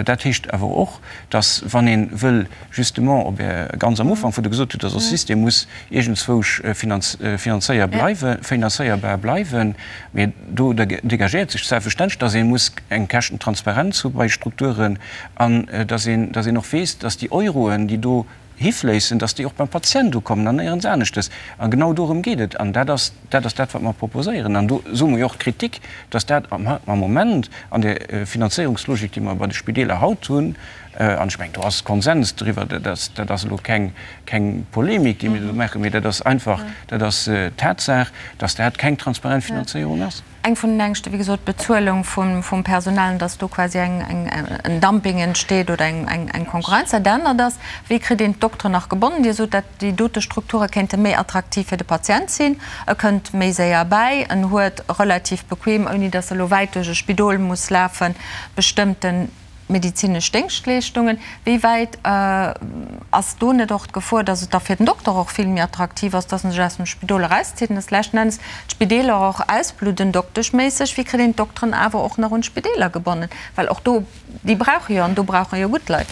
dat heescht awer och, dass, wann ee wëll justement op Är, ganz am Ufank, wou Der gesot hutt, dass e System muss iergendzwousch finanzéier bleiwen, finanzéierbar bleiwen, mee do dégagéiert sech selbstverständlech, dass ee muss eng Käschtentransparenz hu bei Strukturen an dass een, dass een och weess, dass déi Euroen, déi do hifléissen, dass déi och beim Patient ukommen an néierens aneschtes. A genau dorëm geet et. An dat ass, dat ass dat, wat mer proposéieren. An do soe mer jo och d'Kritik, dass dat am Moment an där Finanzéierungslogik, déi mer bei de Spideeler haut hunn, An ech mengen, do ass Konsens driwwer, dat ass, dat ass elo keng, keng Polemik, déi mir do maachen, mee dat ass einfach, dat ass d'Tatsaach, dass dat keng transparent Finanzéierung ass. Eng vun den Ängschte, wéi gesot, d'Bezuelung vum, vum Personal, dass do quasi eng, eng, en Dumping entsteet oder eng, eng, eng Konkurrenz. Dat anert ass, wéi kritt een d'Dokteren nach gebonnen? Dir sot, dat déi dote Strukture kéinte méi attraktiv fir de Patient sinn, e kënnt méi séier bäi, en huet relativ bequem, ouni dass e lo wäit duerch e Spidol muss lafen, bestëmmten Medizinesch Déngschtleeschtungen, wéi wäit ass do net och d'Gefor, datt et da fir den Dokter och vill méi attraktiv ass, datt en sech aus dem Spidol erauszitt an datt leschten Endes d'Spideeler och ausbludden dokteschméisseg? Wéi kritt een d'Dokteren awer och nach un d'Spideeler gebonnen? Well och do, déi brauche jo, an do brauche jo gutt Leit.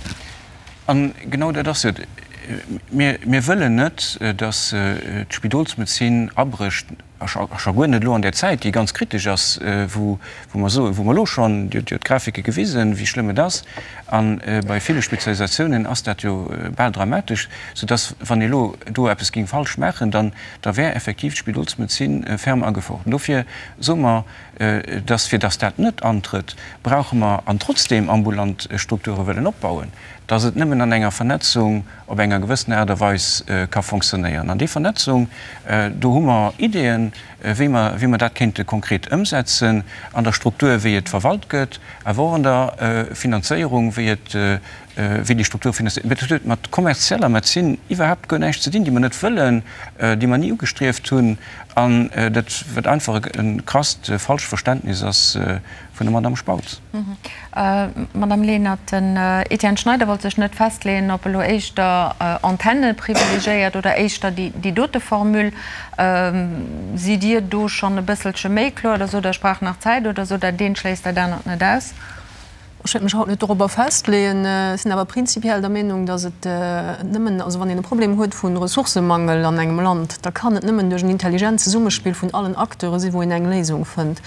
A genau dat ass et. Mir, mir wëllen net, datt d'Spidolsmedezin abrécht. A scho guer net elo an där Zäit, déi ganz kritesch ass, wou mer soen, wou mer elo schonn, Dir hutt jo d'Grafike gewisen, wéi schlëmm et ass, a bei ville Spezialisatiounen ass dat jo bal dramatesch, soudass, wann ee elo do eppes géing falsch maachen, dann da wär effektiv d'Spidolsmedezin ferme a Gefor. An dofir soe mer, dass, fir dass dat net antrëtt, brauche mer, an trotzdem ambulant Strukture wëllen opbauen, dass et nëmmen an enger Vernetzung op enger gewëssener Aart a Weis ka fonctionnéieren. An déi Vernetzung, do hu mer Ideeën, wéi mer, wéi mer dat kéinte konkret ëmsetzen, an der Struktur, wéi et verwalt gëtt, awer och an der Finanzéierung, wéi et, wéi déi Struktur finanziert gëtt. Dat huet mat kommerzieller Medezin iwwerhaapt guer näischt ze dinn, déi mer net wëllen, déi mer ni ugestrieft hunn, an dat, wat einfach e krasst falscht Verständnis ass vun der Madame Spautz. Madame Lenert, den Etienne Schneider wollt sech net festleeën, ob elo éischter Antenne privilegiéiert oder éischter déi dote Formule. Sidd Dir do schonn e bësselche méi kloer oder sot Der, ech brauch nach Zäit oder sot Der, dat eent schléisst dat anert net aus? Ech wéilt mech haut net dorobber festleeën. Ech sinn awer prinzipiell der Meenung, datt et nëmmen, also wann een e Problem huet vu Ressourcemangel an engem Land, da kann et nëmmen duerch en intelligent Zesummespill vun allen Acteure sinn, wou een eng Léisung fënnt.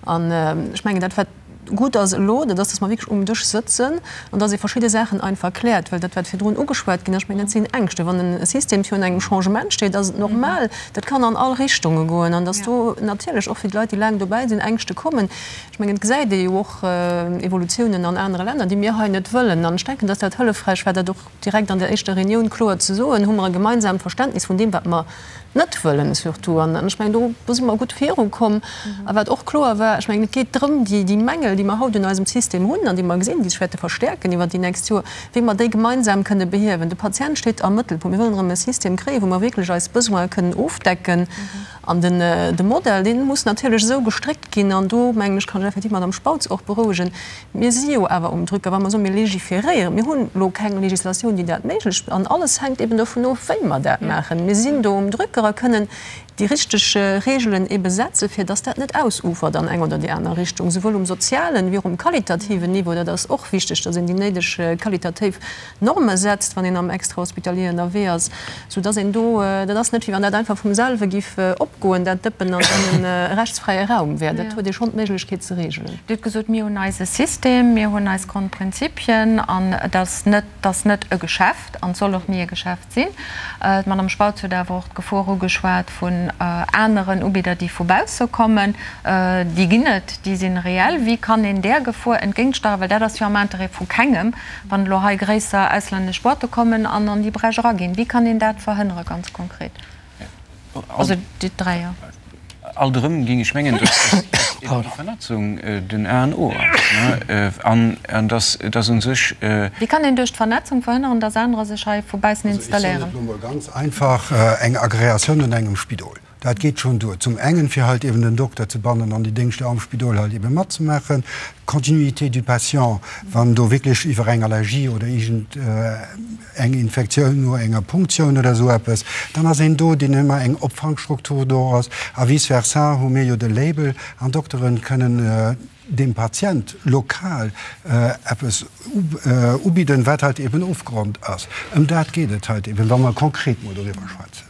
An ech mengen, dat wat gutt ass elo, dat ass, datt mer wierklech um Dësch sëtzen an datt ee verschidde Saachen einfach kläert. Well dat, wat virdrun ugeschwat ginn ass, ech mengen, dat sinn Ängschte. Wann e System virun engem Changement steet, ass et normal, dat kann an all Richtunge goen an datt do natierlech och fir d'Leit, déi laang dobäi sinn, Ängschte kommen. Ech mengen, et gesäit ee jo och Evolutiounen an anere Länner, déi mir hei net wëllen. An ech denken, datt dat hëllefräich war, dat och direkt an der éischter Reunioun kloer ze soen, hu mer e gemeinsaamt Verständnis vun deem, wat mer net wëllen surtout. An ech mengen, do, do si mer gutt virukomm. A wat och kloer war, ech mengen, et geet drëm, déi, déi Mängel, déi mer haut un eisem System hunn an déi mer gesinn, déi sech wäerte verstäerken iwwert déi nächst Joer, wéi mer déi gemeinsam kënne behiewen. De Patient steet am Mëttelpunkt. Mir wëllen erëm e System kréien, wou mer wierklech eis Besoine kënnen ofdecken. An den, de Modell, dee muss natierlech esou gestréckt ginn, an do, mengen ech, kann ech effektiv d'Madame Spautz och berouegen, Mir si jo awer um Drücker, wa mer soen, mir légiféréieren. Mir hunn elo keng Législatioun, déi dat méiglech. An alles hänkt eben dovun of, wéi mer dat maachen. Mir sinn do um Drücker a kënnen déi richteg Regelen ebe setzen, fir dass dat net ausufert an eng oder déi aner Richtung, souwuel um sozialen wéi och um qualitativen Niveau. Dat ass och wichteg, dass een déi néideg qualitativ Norme setzt, wann een am Extrahospitalier ënnerwee ass, soudass een do, dat ass net, wéi wann dat einfach vum selwe giff opgoen. opgoen, dat Dëppen, an dann e rechtsfräie Raum wär. Dat huet ee schonn d'Méiglechkeet ze reegelen. Dir hutt gesot, mir hunn eise System, mir hunn eis Grondprinzipien an et ass net, et ass net e Geschäft an et soll och ni e Geschäft sinn. D'Madame Spautz huet awer och d'Gefor ugeschwat vun aneren Ubidder, déi vu bausse kommen. Déi ginn et, déi si reell. Wéi kann een där Gefor entgéintsteieren? Well dat ass jo am Interêt vu kengem, wann elo hei gréisser auslännesch Boîte kommen an an déi Bräch eraginn. Wéi kann een dat verhënnere ganz konkret? Also déi dräier. Alt erëm géing ech mengen, dass eben déi Vernetzung den A an O ass an dass dass u sech. Wéi kann een duerch d'Vernetzung verhënneren, dass anerer sech hei vu baussen installéieren? Also ech soen et elo mol ganz einfach, Eng Agreatioun un engem Spidol, dat geet schonn duer. Zum engen, fir halt eben den Dokter ze bannen an déi Déngschter am Spidol halt ebe matzemaachen. D'Continuité du patient, wann do wierklech iwwer eng Allergie oder iergend eng Infektioun no enger Punktioun oder esou eppes, dann ass een do, deen ëmmer eng Opfangstruktur do ass. A vice versa hu mir jo de Label an d'Dokteren kënnen dem Patient lokal eppes ubidden, wat halt eben ofgeronnt ass. Ëm dat geet et halt eben, wa mer konkret mol doriwwer schwätzen.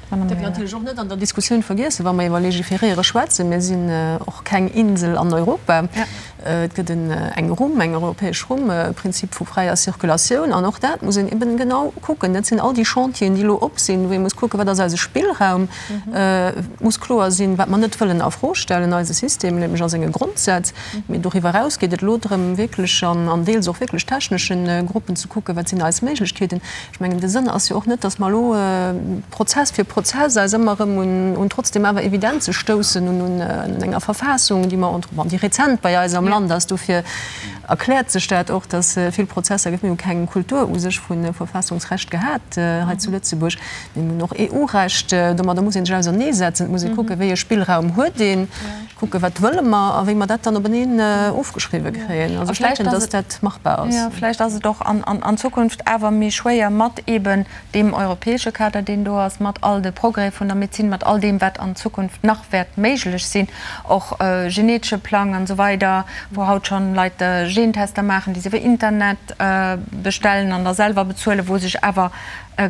Dat dierf een natierlech och net an der Diskussioun vergiessen, wa mer iwwer Légiféréiere schwätzen. Mir sinn och keng Insel an Europa. Et gëtt eng Rumm, eng europäesch Rumm, e Prinzip vu fräier Circulatioun. An och dat muss een eben genau kucken. Dat sinn all déi Chantieren, déi elo op sinn, wou ee muss kucken, Wat ass eise Spillraum? Et muss kloer sinn, wat mer net wëllen a Fro stellen, eise System, nämlech a senge Grondsätz. Mee doriwwer eraus geet et elo drëm, wierklech an deels och wierklech technesche Gruppen ze kucken, Wat sinn eis Méiglechkeeten? Ech mengen, de Sënn ass jo och net, datt mer elo Prozess fir Prozess eis ëmmer erëm un trotzdem awer Evidenze stoussen, un enger Verfassung, déi mer, bon, déi rezent bei eis am Land ass. Dofir erkläert sech dat och, datt vill Prozesser gëtt. Mir hu keng Kultur u sech vu Verfassungsrecht gehat hei zu Lëtzebuerg. Mir hunn och EU-Recht. Domadder muss ee sech auserneesetzen. Et muss ee kucken, wéi e Spillraum huet een. Kucken, wat wëlle mer a wéi mer dat dann openeen ofgeschriwwe kréien. Also ech denken, dass dat machbar ass. Jo, vläicht ass et och an Zukunft awer méi schwéier mat eeben deem europäesche Kader, deen do ass, mat all de Progrès vun der Medezin, mat all deem, wat an Zukunft nach wäert méiglech sinn, och genetesche Plang an esou weider, wou haut schonn Leit Gentester maachen, déi se iwwer Internet bestellen an da selwer bezuelen, wou sech awer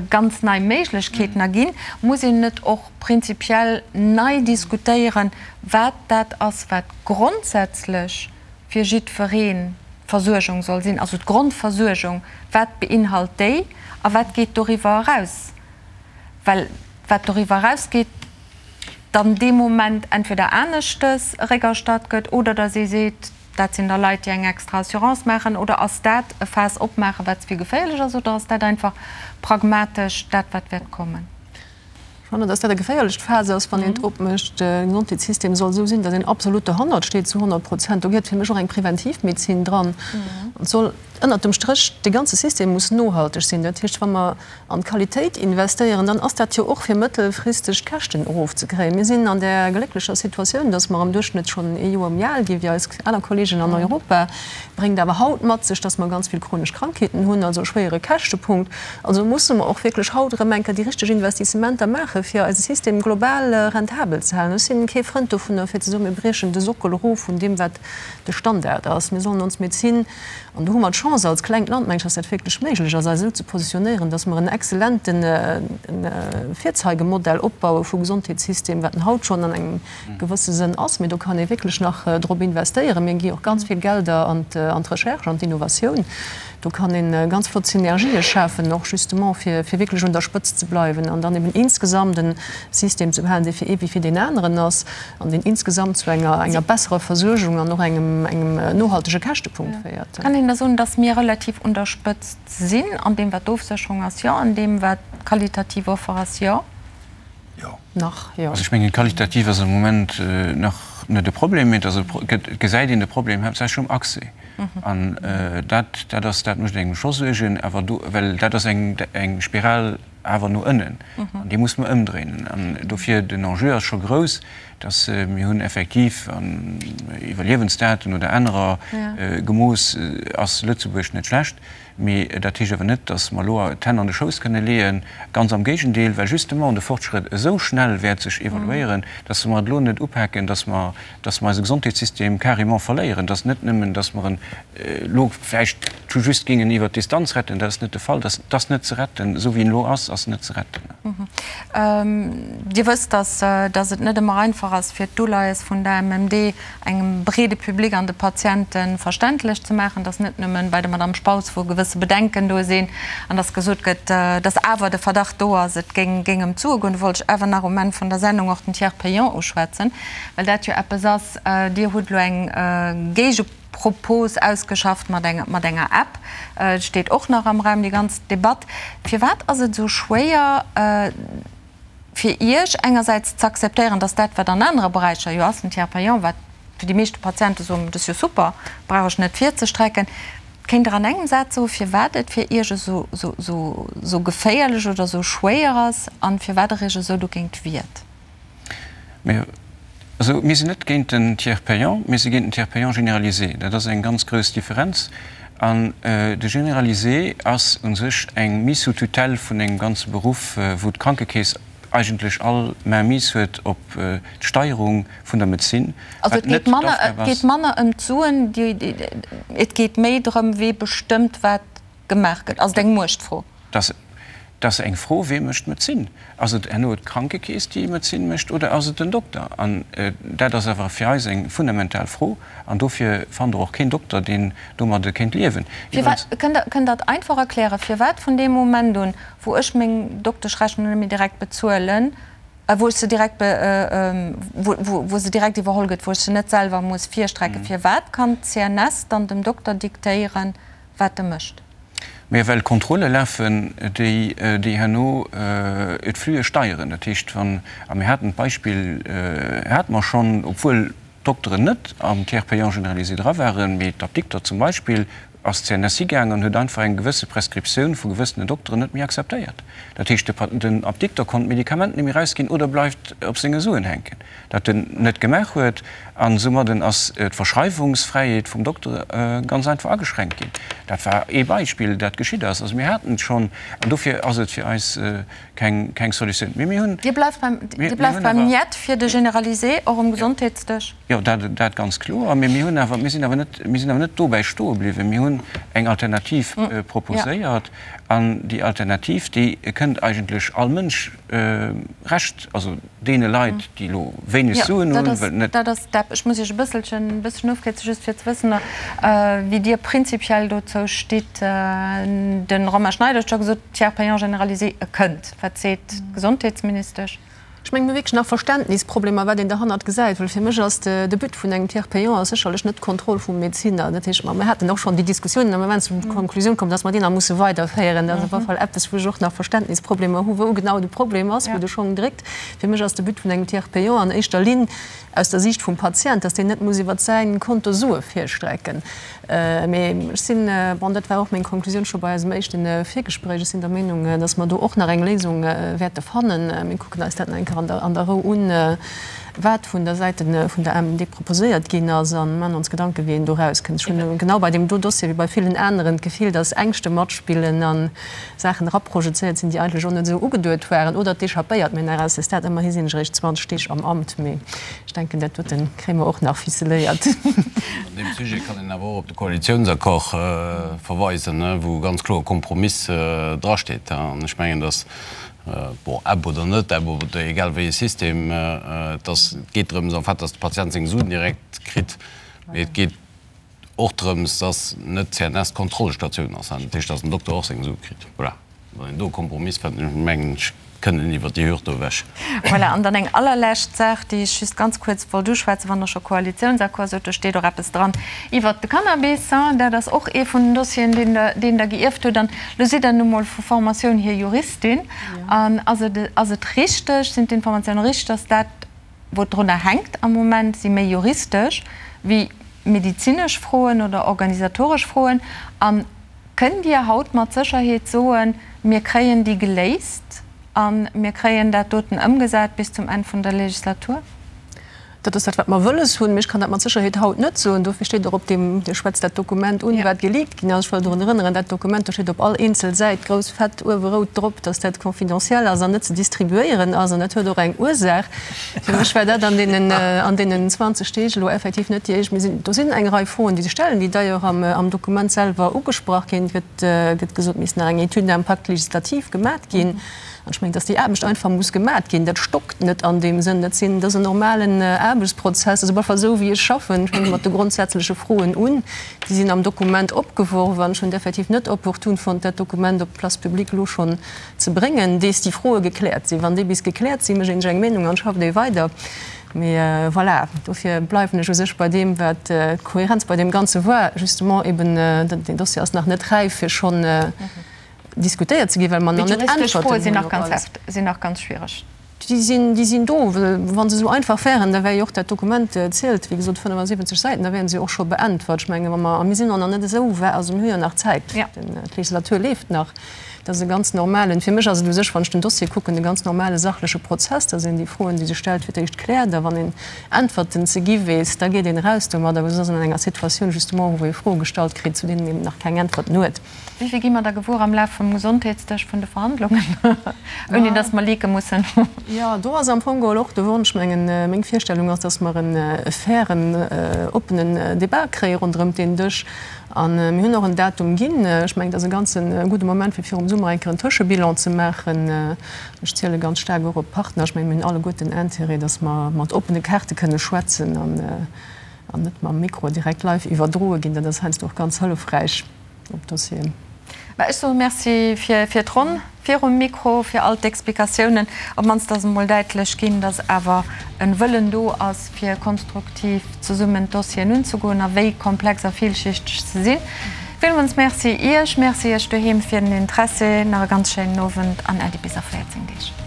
ganz nei Méiglechkeeten erginn. Muss een net och prinzipiell nei diskutéieren, wat dat ass, wat grondsätzlech fir jiddweree Versuergung soll sinn, also d'Grondversuergung, wat beinhalt déi a wat geet doriwwer eraus? Well wat doriwwer erausgeet, dann dee Moment entweder aneschtes eréckerstatt gëtt oder datt ee seet, dat sinn da Leit, déi eng extra Assurance maachen, oder ass dat e Faass opmaachen, wat ze vill geféierlech ass, oder ass dat einfach pragmatesch dat, wat wäert kommen? Ech fannen, dass dat e geféierlecht Faass ass, wann een et opmécht. De Gesondheetssystem soll esou sinn, dass een absolut dohannert steet, zu 100 Prozent. Do gehéiert fir mech och eng Preventivmedezin dran. An et soll ënnert dem Stréch, de ganze System muss nohalteg sinn. Dat heescht, wa mer an d'Qualitéit investéieren, dann ass dat jo och fir mëttelfristeg d'Käschten erofzekréien. Mir sinn an där glécklecher Situatioun, dass mer am Duerchschnëtt schonn ee Joer méi al gi wéi eis aner Kolleegen an Europa. Bréngt awer haut mat sech, dass mer ganz vill chronesch Krankheeten hunn, also e schwéiere Käschtepunkt. Also musse mer och wierklech haut erëm eng Kéier déi richteg Investissementer maachen, fir eise System global rentabel ze halen. Ech sinn kee Frënd dovunner, fir ze soen, mir briechen de Sockel erof vun deem, wat de Standard ass. Mir sollen ons Medezin, an do hu mer d'Chance als klengt Land, meng ech, dass dat wierklech méiglech ass, eis esou ze positionéieren, dass mer en exzellente Virzeigemodell opbaue vu Gesondheetssystem, wat en haut schonn an engem gewësse Sënn ass, mee do kann ee wierklech nach drop investéieren. Mir gi och ganz vill Gelder an d'Recherche, an d'Innovatioun. Do kann ee ganz flott Synergië schafen, och justement fir wierklech un der Spëtzt ze bleiwen an dann eben insgesamt e System ze behalen, dee fir ee wéi fir deen aneren ass an deen insgesamt zu enger besserer Versuergung an och engem nohaltege Käschtepunkt féiert. Kann een da soen, datt mir relativ un der Spëtzt sinn an deem wat d'Ofsécherung ass? Jo. An deem wat d'qualitativ Offer ass? Jo. Jo. Nach, jo. Also ech mengen, qualitativ ass am Moment nach net e Problem, mee et ass e, et gesäit een de Problem haaptsächlech um Accès. An dat, dat ass, dat mécht engem scho Suergen, awer do, well dat ass eng, eng Spiral awer no ënnen an déi muss mer ëmdréinen. An dofir, den Enjeu ass scho grouss, dass mir hunn effektiv an Iwwerliewensdaten oder anerer gemooss, ass Lëtzebuerg net schlecht. Mee dat heescht awer net, dass mer elo d'Hänn an de Schouss kënne leeën. Ganz am Géigendeel, well justement de Fortschrëtt esou schnell wäert sech evaluéieren, dass wa mer et elo net upaken, dass mer, dass mer eise Gesondheetssystem carrément verléieren. Dass net nëmmen, dass mer en elo vläicht tout juste géingen iwwert d'Distanz retten, dat ass net de Fall, dat ass net ze retten, esou wéi en elo ass. ass, ass se net ze retten. Dir wësst, dass dass et net ëmmer einfach ass, fir d'Uleies vun der MMD engem breede Public an de Patiente verständlech ze maachen, dass net nëmmen bei der Madame Spautz, wou gewësse Bedenken do sinn an dass gesot gëtt, dass awer de Verdacht do ass, et géing géing ëm d'Sue goen. Do wollt ech awer nach um Enn vun der Sendung och den Tiers payant uschwätzen, well dat jo eppes ass, Dir hutt elo eng Géigepropos ausgeschafft mat eng mat enger App. Et steet och nach am Raum, déi ganz Debatt. Firwat ass et esou schwéier, fir Iech engersäits z'akzeptéieren, dass dat, wat an anere Beräicher jo ass, den Tiers payant, wat fir déi meeschte Patiente soen, dat ass jo super, brauch ech net virzestrecken. Kéint Der an engem Saz soen, firwat et fir Iech esou, esou, esou geféierlech oder esou schwéier ass an firwat Der Iech esou dogéint wiert? Mir, also mir sinn net géint den Tiers payant, mir si géint den Tiers payant généralisé. Dat ass eng ganz grouss Differenz. An de Généralisé ass u sech eng Mise sous tutelle vun engem ganze Beruff, wou d'Krankekeess eigentlech all Mainmise huet op d'Steierung vun der Medezin, Also wat et geet net manner, et d'Aufgab ass. geet manner ëm d'Suen, déi, et geet méi drëm, wee bestëmmt, wat gemaach gëtt. Ass et eng Muechtfro? Dass, dass eng Fro, Wee mécht d'Medezin? Ass et herno d'Krankekeess, déi Medezin mécht, oder ass et den Dokter? An dat ass awer fir eis eng fundamental Fro. An dofir fannt Der och keen Dokter, deen domadde kéint liewen. Firwat, kënnt Der, kënnt Der et einfach erklären, firwat vun deem Moment un, wou ech meng Dokteschrechnung net méi direkt bezuelen, wou ech se direkt be, wou, wou, wou se direkt iwwerholl gëtt, wou ech se net selwer muss virstrecken, firwat kann d'CNS dann dem Dokter diktéieren, wat e mécht? Mä well Kontrolle lafen, déi déi herno d'Flüe steieren. Dat heescht, wann, a mir haten d'Beispill hate mer schonn, obwuel d'Dokteren net am Tiers payant généralisé dra waren, mee d'Apdikter zum Beispill, ass d'CNS higaangen an huet einfach eng gewësse Prescriptioun vu gewëssene Dokteren net méi akzeptéiert. Dat heescht, den Apdikter konnt d'Medikament net méi erausginn oder bleift op senge Suen hänken. Dat en net gemaach huet, an soumadden ass d'Verschreiwungsfräiheet vum Dokter ganz einfach ageschränkt ginn. Dat war ee Beispill, dat geschitt ass. Also mir haten et schonn, an dofir ass et fir eis keng, keng Solutioun. Mee mir hunn. Dir bleift beim, Dir bleift beim Niet fir de Généralisé, och um Gesondheetsdësch? Jo, dat, dat ganz kloer. Mee mir hunn awer, mir sinn awer net, mir sinn awer net dobäi stoe bliwwen. Mir hunn eng Alternativ proposéiert, an déi Alternativ, déi kënnt eigentlech all Mënsch Recht, also deene Leit, déi elo wéineg Suen hunn, wëll net. Dat ass d'App. Ech muss Iech e bësselchen, e bësselchen ofkierzen, just fir ze wëssen, wéi Dir prinzipiell dozou stitt. De Romain Schneider huet scho gesot, Tiers payant généralisé, e kënnt. Wat seet d'Gesondheetsministesch? Ech mengen, mir hu wierklech nach Verständnisproblemer, wat een derhannert gesäit, well fir mech ass de But vun engem Tiers payant ass sécherlech net d'Kontroll vum Medezinner. Dat heescht, mer haten och schonn déi Diskussiounen a mer waren zur Konklusioun komm, dass mer déi nach musse weiderféieren. Dat ass op alle Fall eppes, wou ech och nach Verständnisproblemer hu, wou genau de Problem ass, wou de Schong dréckt. Fir mech ass de But vun engem Tiers payant an éischter Linn aus der Siicht vum Patient, dass deen net muss iwwert säi Konto Sue virstrecken. Mee ech sinn, bon, dat war och meng Konklusioun scho bei eisem éischte Virgespréich, ech sinn der Meenung, dass mer do och nach eng Léisung wäerte fannen. Mir kucken eis dat nach eng Kéier an der Rou un, wat vun der Säite vun der AMMD proposéiert ginn ass, a maachen ons Gedanken, wéi een do erauskënnt. Ech hunn genau bei deem do Dossier wéi bei villen aneren d'Gefill, dass Ängschte matspillen a Saachen eraprojezéiert sinn, déi eigentlech och net esou ugeduet waren oder d'échappéiert mir nach à ce stade. Ëmmerhi sinn ech eréischt 20 Deeg am Amt, mee ech denken, dat dote kréie mer och nach ficeléiert. An deem Sujet kann een awer och op de Koalitiounsaccord verweisen, wou ganz kloer Kompromiss drasteet. An ech mengen, datt, bon, App oder net App oder egal wéi e System, et ass, et geet drëms en fait, datt de Patient seng Suen direkt kritt, mee et geet, Och drëms, dass net d'CNS d'Kontrollstatioun ass, dat heescht, dass den Dokter och seng Sue kritt. Voilà, wann een do e Kompromiss fënnt, mengen ech, kënnt een iwwert déi Hürd do ewech. Voilà, an dann eng allerlescht Saach, déi ech just ganz kuerz wollt uschwätzen, wann Der scho Koalitiounsaccord sot, do steet och eppes dran iwwert de Cannabis. Dat ass och ee vun den Dossieren, deen Der, deen Der gierft hutt. An elo sidd Der nu mol vu Formatioun hier Juristin. An ass et, ass et richteg, sinn d'Informatiounen richteg, dass dat, Wou et drunner hänkt am Moment, si méi juristesch wéi medezinesch Froen oder organisatoresch Froen. A kënnt Dir haut mat Sécherheet soen, mir kréien déi geléist a mir kréien dat doten ëmgesat bis zum Enn vun der Legislatur? Dat ass dat, wat mer wëlles hunn. Mee ech kann dat mat Sécherheet haut net soen. Dofir steet och op deem, Dir schwätzt dat Dokument un, wat geleakt ginn ass. Ech wëll drun erënneren, dat Dokument, do steet op all eenzel Säit grouss fett uewe rout drop, dass dat confidentiel ass an net ze distribuéieren ass. An dat huet och eng Ursaach. Fir mech war dat an deenen, an deenen 20 Deeg elo effektiv net déi éischt. Mir sinn, do sinn eng Rei Froen, déi sech stellen, déi d'ailleurs am, am Dokument selwer ugesprach ginn. Et gëtt, gëtt gesot, et misst nach eng Étude d'impact législatif gemat ginn. An ech mengen, dass déi Aarbecht einfach muss gemat ginn. Dat stockt net an deem Sënn. Dat sinn, dat ass en normalen Aarbechtsprozess. Also op alle Fall esou wéi ech schaffen. Ech fänke mat de grondsätzleche Froen un. Déi sinn am Dokument opgeworf an ech hunn et effektiv net opportun fonnt, dat Dokument op d'Place publique elo schonn ze bréngen, dees déi Froe gekläert sinn. Wann déi bis gekläert sinn, mécht een sech eng Meenung an schafft ee weider. Mee voilà, dofir bleiwen ech u sech bei deem, wat d'Kohärenz bei deem Ganze war, justement eben, deen Dossier ass nach net räif fir schonn, diskutéiert ze ginn, well mer nach net Äntwerten hunn op alles. Sinn nach ganz schwiereg. Déi sinn, déi sinn do. Wa se esou einfach wären, da wär jo och dat Dokument, zielt wéi gesot 75 Säiten, da wären se jo och scho beäntwert. Ech menge wa mer, a mir sinn och nach net esou wäit, also mir hu jo nach Zäit, d'Legislatur leeft nach. Dat ass e ganz normalen, fir mech ass et u sech, wann ech den Dossier kucken, e ganz normale sachleche Prozess, dass een déi Froen, déi sech stellt, fir d'éischt kläert a wann een Äntwerten ze gi weess, da geet een eraus domadder. Well soss ass een an enger Situatioun justement, wou ee Froe gestallt kritt, zu deenen een nach keng Äntwerten huet. Wéi vill gi mer da gewuer am Laf vum Gesondheetsdësch vun de Verhandlungen, ouni datt mer leake mussen? Jo, do ass am Fong geholl och de Wonsch, mengen, meng Virstellung ass, datt mer e fairen, oppenen Débat kréie ronderëm deen Dësch. A mir hunn och en Datum ginn. Ech mengen, et ass e ganze gudde Moment, fir virum Summer eng Kéier en Tëschebilan ze maachen. Ech ziele ganz staark och op d'Partner. Ech mengen, mir hunn alleguerten Intérêt, datt mer mat oppene Kaarte kënne schwätzen an net mam Mikro direkt live iwwerdroe ginn. Dat ass heiansdo och ganz hëllefräich. op Dossieren. Mä ech soe Merci fir d'Ronn virum Mikro, fir all d'Explikatiounen. Op d'mannst ass emol däitlech ginn, datt awer e Wëllen do ass, fir konstruktiv zesummen d'Dossieren unzegoen a wéi komplex a villschichteg se sinn. Villmools Merci Iech, Merci Iech doheem fir den Interessi. Nach e ganz schéinen Owend an Äddi bis a 14 Deeg.